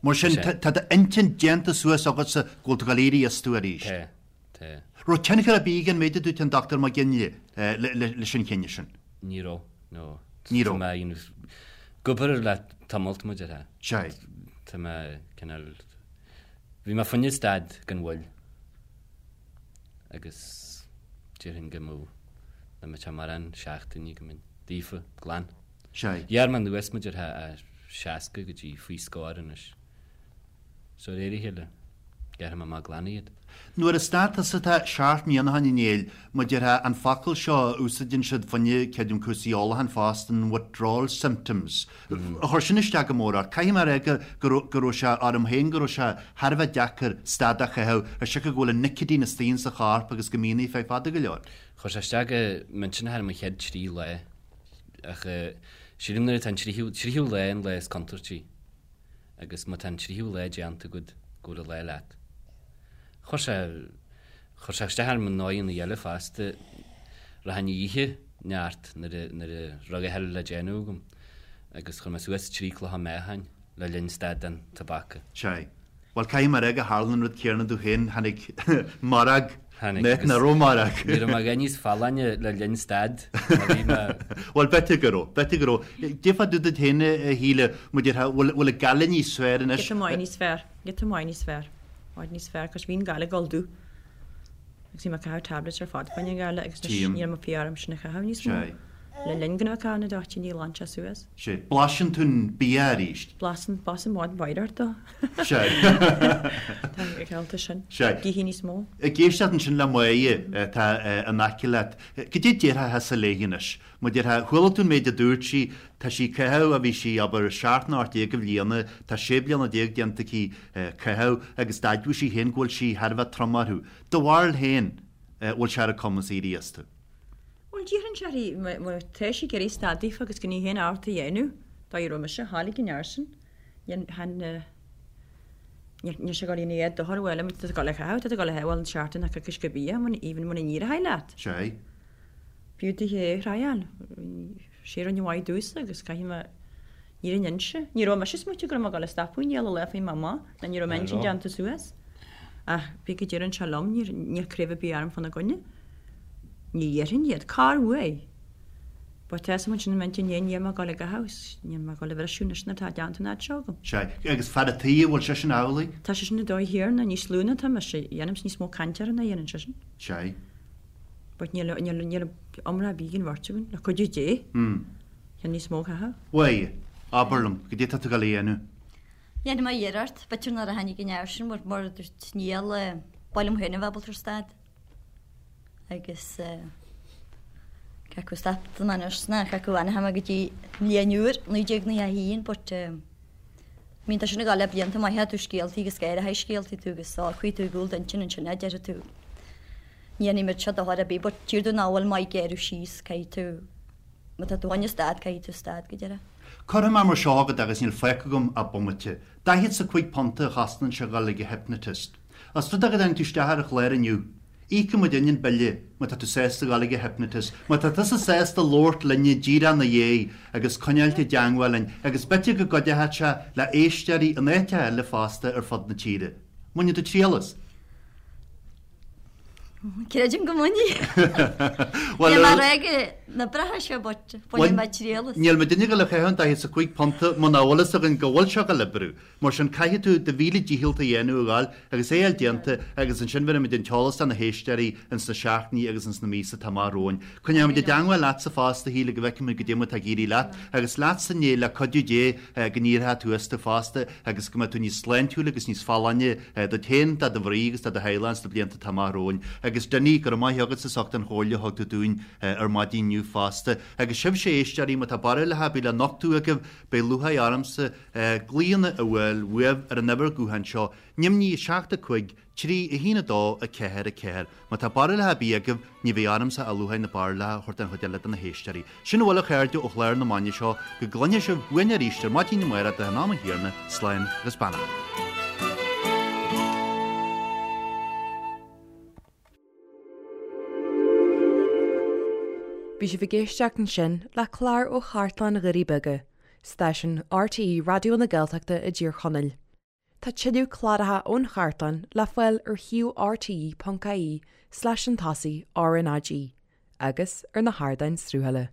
Mar sin, tá d'intinn déanta suas agatsa go bhfuil tú ag dul éirí astu arís. Tá, tá. Raibh tionchar ar bith ag an méid a dúirt an Dr Mac Ginlea leis an chinneadh sin? Ní raibh, no. Ní raibh. Tá mé ag obair le tamalt mar a déarfá. Sea. Tá mé cineál, bhí mé fá choinne stad gan mhoill agus déarfainn go mbeadh, nach mbeadh sé mórán seachtainí go mbeinn daofa, glan. Sea. Ghearr mé anuas mar a déarfá ó 60 go dtí faoi scór anois. So de réir a chéile, gearrfaidh mé amach glan iad. Nuair a stad tusa tá seacht mbliana ó shin a Néill, mar a déarfá, an focal seo a úsáideann siad fá choinne creidim cúrsaí ólacháin fosta, an withdrawal symptoms. Chuir sin isteach go mór ort. Caithfidh mé a rá go, go raibh, go raibh sé orm féin go raibh sé thar a bheith deacair stad a chaitheamh ar siocair go bhfuil an nicotine istigh insa chorp agus go mbíonn ar feadh fada go leor. Chuir sé isteach go millteanach orm an chéad trí lá ach sílim nuair atá an tríú, tríú lá an lá is contúirtí. agus má tá an tríú lá déanta agat go bhfuil an lá leat. Chuir sé, chuir sé isteach orm i ndóigheanna eile fosta, rachainn a ithe neart nuair a, nuair a raibh a thuilleadh le déanamh agam agus chuir mé suas trí clocha meáchain le linn stad den tobac. Sea. Bhuel, caithfidh mé a rá gur tharla an rud céanna domh féin, tháinig mairg, Tháinig nach raibh mairg. Ní raibh mé a dhath níos folláine le linn stad ná bhí mé. Bhuel, b'fhéidir go raibh, b'fhéidir go raibh. Goidé fá dtaobh duit féin, a Shíle, mar a déarfá, bhfuil, bhfuil an ghaile níos fearr anois? Giota maith níos fearr, giota maith níos fearr, i bhfad níos fearr, 'cause bhí an ghaile ag dul domh. Agus bhí mé ag caitheamh tablets ar fad fá choinne an ghaile agus anois níl mé fiú orm sin a chaitheamh níos mó. Le linn go raibh mé ag caitheamh na dtoitíní ghlan sé suas. Sea. Blaiseann tú an bia arís. Blaiseann, blaiseann bhfad mhaith ort dó. Sea. Tá an sin. Sea. Gíthe níos mó. Ag éisteacht ansin le Máire atá in aice leat, goidé a déarfá thusa léi anois. Mar a déarfá, chuala tú an méid a dúirt sí, tá sí ag caitheamh ó bhí sí, abair, seacht nó 18 de bhliana, tá sé bliana déanta aici caitheamh agus d'admhaigh sí féin go bhfuil sí thar a bheith trom orthu. Do bharúil féin, bhfuil sé ar a cumas éirí astu? Bhuel, déarfainn sé má tá sí ag iarraidh stad daofa agus gan í féin ábalta a dhéanamh, dá raibh mise, tháinig an fhear sin, níl sé ag dul ina dhiaidh dochar bhuel, tá tú ag dul a chaitheamh, tá tú ag dul a chaitheamh, bhuel, an seachtain ach coicís go bia, even muna n-éireoidh leat. Sea. B'fhiú duit é a thriáil. Sé rinne mhaith domhsa agus caithfidh mé. Ní raibh inse. Ní raibh mise ag smaoitiú go raibh mé ag dul a stopadh i ndiaidh lá faoi m'amá, ná ní raibh m'intinn déanta suas. Ach pé go deireann sé liom, níor, níl craobh ar bith orm fána gcoinne. Ní dhéarfainn iad. Cár uaidh? But tá fhios agam ansin i m'intinn féin, níl mé ag dul ag caitheamh, níl mé ag dul a bhriseadh anois nuair atá déanta an fhad seo agam. Sea. Agus fear a' tí, an bhfuil seisean amhlaidh? Tá seisean ar dóigh chéanna, níos lú ná atá mise. Dhéanaimse níos mó cainte air ná a dhéanann seisean. Sea. But níl, níl, níl iomrá ar bith ag an bheirt againn, le cuidiú Dé. Tá níos mó caitheamh. Bhuel, abair liom, goidé tá tú ag dul a dhéanamh? Dhéanfaidh mé iarracht, b'fhéidir nuair a tháinig an fhear sin, mar a dúirt Niall, ba mhaith liom féin a bheith ábalta ar stad. Agus cé acu stop don anois ná cé acu fhanfaidh mé go dtí an bhliain úr, 1991, but bíonn tá sin ag dul le blianta maithe, tú scéaltaí agus gáire scéaltaí tú agus socraíonn tú i gcúl d'intinn ansin a déarfaidh tú. Ní dhéanfaidh muid seo dochar ar bith, but tír tú nach bhfuil maith géarú síos, caithfidh tú, má tá tú chun stad, caithfidh tú stad go deireadh. Cuirfidh mé mar seo agat agus níl fágtha agam ach bomaite. Daichead 's a cuig punta a chosnaíonn sé dhul ag an hypnotist. Os rud é go dtáinig tú isteach ar an chlár inniu, íocfaidh muidinne an bille má tá tú sásta dhul ag an hypnotist, má tá tusa sásta labhairt linne díreach ina dhiaidh agus coinneáilt i dteangmháil linn agus b'fhéidir go gcuideoidh sé le éisteoirí in áiteacha eile fosta ar fud na tíre. Mbainfidh tú triail as? Creidim go mbainfidh. Níl mé ag rá go n-oibreoidh sé but bainfidh mé triail as. Níl muidinne ag dul a chaitheamh an 45 punta muna bhfuil fhios againn go bhfuil sé ag dul oibriú. Mar sin caithfidh tú do mhíle dícheall a dhéanamh a ghabháil agus é a fháil déanta agus ansin bhéarfaimid an t-eolas do na héisteoirí ins na seachtainí agus ins na míosa atá amach romhainn. Coinneoimid i dteangmháil leatsa fosta a Shíle go bhfeicfimid goidé mar atá ag éirí leat agus leatsa Niall le cuidiú Dé go n-éireoidh tú astu fosta agus go mbeidh tú níos sláintiúla agus níos folláine duit féin, do do mhnaoi agus do do theaghlach sna blianta atá amach romhainn. Agus Dinny, go raibh maith agatsa as ucht an chomhairle a thug tú dúinn ar maidin inniu fosta. Agus sibhse a éisteoirí, má tá barúlacha ar bith le nochtadh agaibh, beidh lúcháir ormsa glaonna a fháil uaibh ar an uimhir gutháin seo, neamhní 7 5 3 1 2 4 4. Má tá barúlacha ar bith agaibh, ní bheidh ormsa ach lúcháir na barúlacha a thabhairt don chuid eile de na héisteoirí. Sin a bhfuil a chairde ó chlár na maidine seo, go gcluinfidh sibh uainn arís ar maidin amárach de in am an Thiarna, slán agus beannacht. Bhí sibh ag éisteacht ansin le clár ó Chartlann Dhoirí Beaga, stáisiún RTÉ Raidió na Gaeltachta i dTír Chonaill. Tá tuilleadh cláracha ón chartlann le fáil ar shuíomh rte.ie slash chun tosaigh RnaG agus ar na hardáin sruthála.